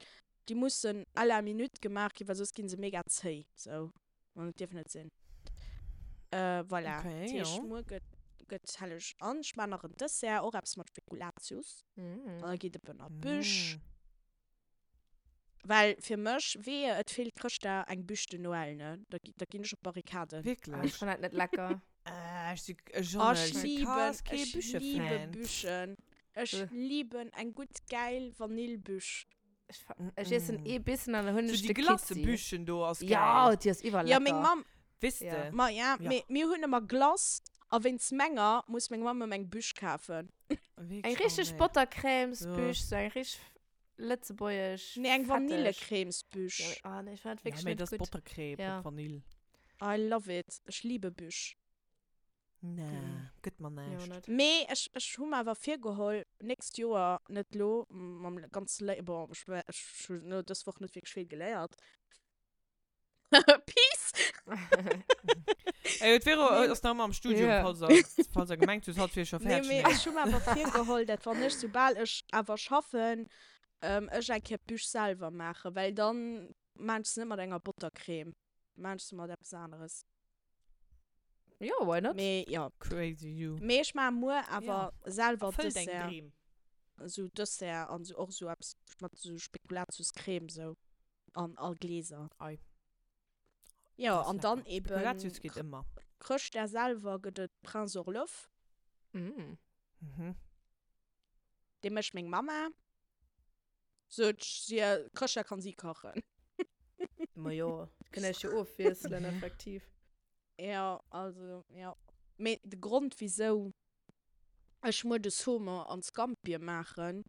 déi mussen à la minute gemaach ginn, well soss ginn se mega zéi. Sou. An et dierf net sinn. Äh, voilà. Okay, Dat heescht, jo. muer gëtt, gëtt helleg. An ech maan nach en Dessert, och eppes mat Spekulatius. Mm. An da geet et eben an d'Büch. Mm. Well fir mech, wehe et feelt Chrëschtdag eng Bûche de Noël, ne, da da ginn ech op d'Barrikaden. Ech Wierklech? fannen dat net lecker. Äh, ech si Oh, Jeanne, ech ech si liben, krass kee ech liebe Bûche-Fan. Bûchen. Ech liben eng gutt gäil Vanillbûche. Ech, ech iessen ee Bissen an dann hunn So ech déi de Kitzi. Glacebûchen do ass Ja, gäil. déi ass Ja, iwwerlecker. meng Mamm, Weess Ja. de? ma ja, Ja. mee mir hunn ëmmer Glace a wéinst menger muss meng Mamm ëmmer eng Bûche kafen. Eng Wierklech? Oh richteg nee. Bottercrèmesbûche, sou eng richteg lëtzebuergesch. Nee, eng fetteg. Vanillecrèmesbûche. Ja, mee, ah nee, ech fannen dat Ja, wierklech mee net dat ass gutt. Bottercrème Ja. mat Vanille. I love it. Ech liebe Bûche. Nee, gëtt mer Jo, näischt. net. Mee ech, ech hu mer awer virgeholl, nächst Joer, net lo, mam ganze Lé-, bon, ech, ech hunn elo dës Woch net wierklech vill geléiert. Peace! Ey, d'Vero Nee. ass nach ëmmer am Studium, Ja. falls der, falls der gemengt hutt, hatt wier scho Nee, fäerdeg. mee Nee. ech hu mer awer virgeholl, dat wann ech, soubal ech awer schaffen, ech eng Kéier d'Bûche selwer maachen, well dann maan ech se net mat enger Bottercreme, maan ech se mat eppes aneres. Jo, why not? Mee jo. Crazy you. Mee ech maache muer awer selwer Erfëll deng Dessert. Dreem. Esou Dessert an esou och esou eppes mat esou Spekulatiuscreme esou. An all Gläser. Ei. Jo, Das an dann lecker. eben Spekulatius geht ëmmer. Chrëschtdag selwer gëtt et Prince Orloff. Mm. Mhm. Dee mécht meng Mamma. Sot si, Chrëschtdag kann si kachen. Ma jo, kënnt iech jo ofwiesselen, effektiv. Jo, also, jo. Mee de Grond wisou ech muer de Saumon an Scampie maachen,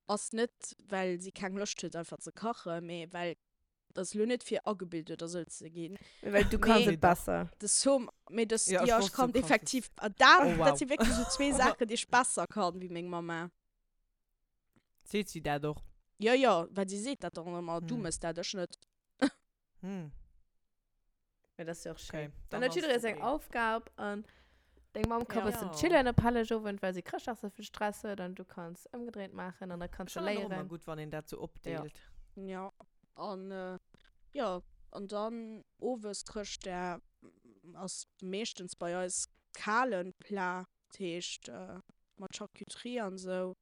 ass net well si keng Loscht huet einfach ze kachen, mee well, dat ass elo net fir agebilt oder sou ze ginn, Mee well du kanns mee et besser. de Saumon, mee de, Ja, ech jo ech wosst, du kann kanns et. effektiv, dat, Oh wow. dat si wierklech sou zwee Saachen déi ech besser kann wéi meng Mamma. Seet si dat och? Jo jo, well si seet dat dann ëmmer, du Hm. mëss dat, ech net. Hm. Ja, das ist ja auch schön. Okay, Dann dann huet jidderee ass seng okay. Aufgab an deng Mamm ka Ja. bëssen Ja. chillen op Hellegowend, well si Chrëschtdag sou vill Stress huet an du kanns ëmgedréint maachen an da kanns Ech du fannen och ëmmer léieren. gutt, wann een dat sou opdeelt. Ja, an jo, an dann owes Chrëschtdag ass meeschtens bei eis kalen Plat, dat heescht mat Charcuterie an sou,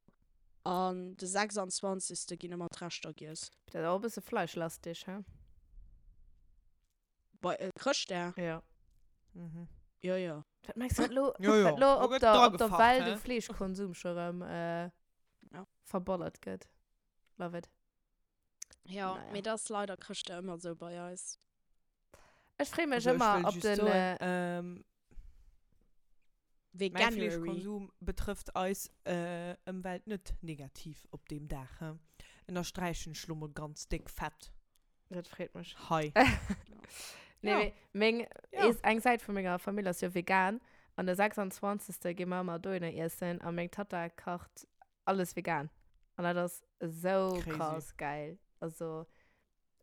an de 26. ginn ëmmer d'Reschter giess. Dat ass och e bësse fleischlastig, he? Bei äh, Chrëschtdag? Ja. Mhm. Jo, jo. Wat mengs du, wat lo, Jo, jo. wat lo Do op gëtt der, op der dragefacht, Welt hä? u Fleeschkonsum scho rëm äh, Ja. verballert gëtt? Love it. Ja, Naja. mee dat ass leider Chrëschtdag ëmmer sou bei eis. Ech freeë mech Also, ech ëmmer wëll op just den. soen, Äh, ähm, mäi Veganuary. Fleeschkonsum betrëfft eis äh, Ëmwelt net negativ op deem Dag, hä? Ënnersträichen ech lo mol ganz déck fett. Dat freet mech. Hei. Nee, Ja. mee meng, Ja. is, eng Säit vu menger Famill ass jo vegan. An de 26. gi mer ëmmer dohinner iessen a meng Tatta kacht alles vegan. An dat ass esou Crazy. krass geil. Also,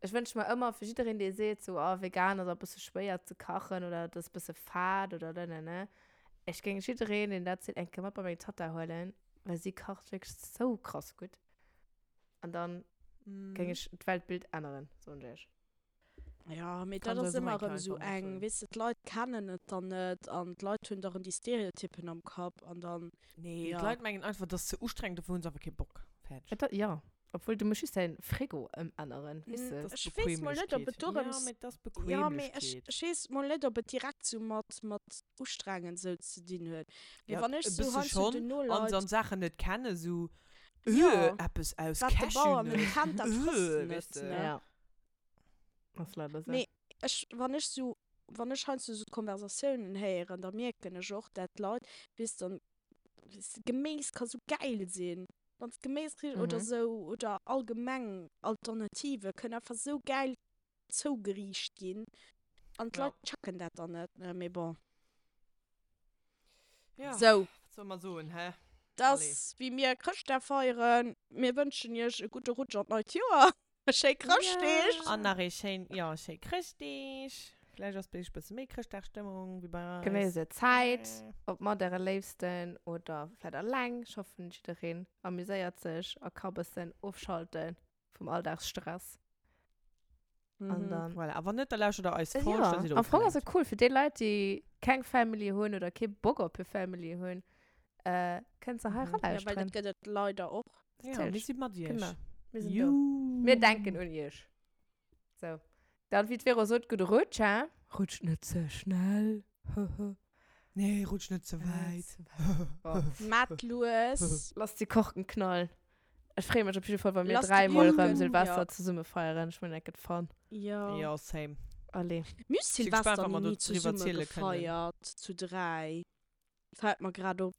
ech wënsche mer ëmmer fir jiddereen, dee seet sou, oh, vegan ass e bësse schwéier ze kachen oder et ass e bësse fad oder nenene. Ech géing jiddereen, deen dat seet, eng Kéier mat bei meng Tatta huelen, well si kacht wierklech sou krass gutt. An dann géing ech d'Weltbild änneren, soen ech iech. Ja, mee dat Kann ass se ëmmer eng erëm esou einfach eng, mathuelen. weess de, d'Leit kennen et dann net an d'Leit hunn da rëm déi Stereotypen am Kapp an dann, Nee, ja. d'Leit mengen einfach, dat ass ze ustrengend, dofir hunn se einfach kee Bock. Fäerdeg. Et, ja, obwuel du muss just däin Frigo ëmänneren, weess de. Dat ass Ech weess mol net, ob et Bequemlechkeet. Ja, dorëms, mee dat ass ja, mee ech, Bequemlechkeet. ech weess mol net, ob et direkt sou mat, mat ustrengend sou ze dinn huet. Mee Ja, wann ech e sou bësse heiansdo schonn. den An Noleit, se an Saachen net kennen, sou, Ja. Äh, eppes aus Wat de Bauer net Cashewnëss. kennt, dat frësst Äh, en weess net, de. ne? Ja. Ass leider sou. Mee ech, wann ech sou, wann ech heiansdo sou d'Konversatiounen héieren, da mierken ech och, dat d'Leit, weess dann, weess de, Geméis ka sou gäil sinn, wann s Geméis kriss oder Mhm. sou, oder allgemeng Alternative kënnen einfach sou gäil zougeriicht ginn an Ja. d'Leit checken dat dann net, ne? Mee bon. Ja, Sou. wat soll mer soen, hä? Dat Allez. ass wéi mir Chrëschtdag feieren. Mir wënschen iech e gudde Rutsch an d'neit Joer, schéi Chrëschtdeeg. An nach ee schéin, jo, schéi Chrëschtdeeg. Vläicht ass bei iech e bësse méi Chrëschtdagstëmmung wéi bei eis. Genéisst är Zäit, ob mat äre Léifsten oder vläicht alleng. Ech hoffen, jiddereen amuséiert sech a ka bëssen ofschalte vum Alldagsstress. An dann. Voilà, a wann net, da lauschtert der eis Folg, Ja, da sidd der am Fong ass ofgelenkt. et cool fir déi Leit, déi keng Family hunn oder kee Bock op hir Family hunn, äh, kënnt se hei Mhm. Ja, well eralauschteren. dat gëtt et leider och. Ja, mir si mat iech. Genau. Mir sinn do. Mir denken un iech. So. Dann, wéi d'Vero sot, gudde Rutsch, hein? Rutscht net ze schnell. Nee, rutscht net ze wäit. Maat lues. Lasst déi Korken knallen. Ech freeë mech op jidde Fall, wa mir dräimol erëm Silvester zesumme feieren. Ech mengen, dat gëtt fun. Jo. Jo, same. Allez. Mir hu Silvester ni zesumme gefeiert, zu 3. Fällt mer grad op.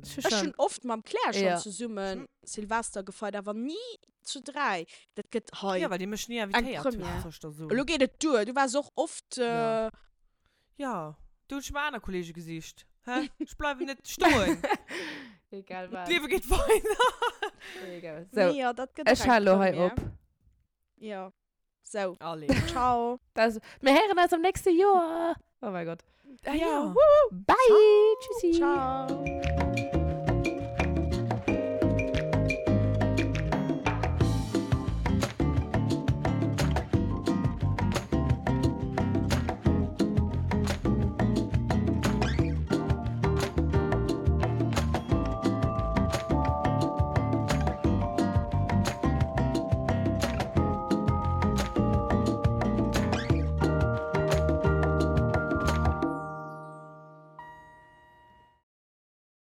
Ech hunn oft mam Claire schonn zesummen Silvester gefeiert, awer ni zu 3. Dat gëtt hei Jo, well dir mech ni eng invitéiert hutt, Première. soll ech der soen. Elo geet et duer, du waars och oft. Jo. Jo, do hunn ech mer aner Kollege gesicht. Hä? Ech bleiwen net stoen. Egal wat. D'Liewe geet weider. Egal. Sou, Nee, jo, dat gëtt ech och eng hale lo hei Première. op. Jo. Sou. Allez. Ciao. Das, mir héieren eis am nächste Joer. Oh mein Gott. Ah, ja. Bye. Tschüssi. Ciao.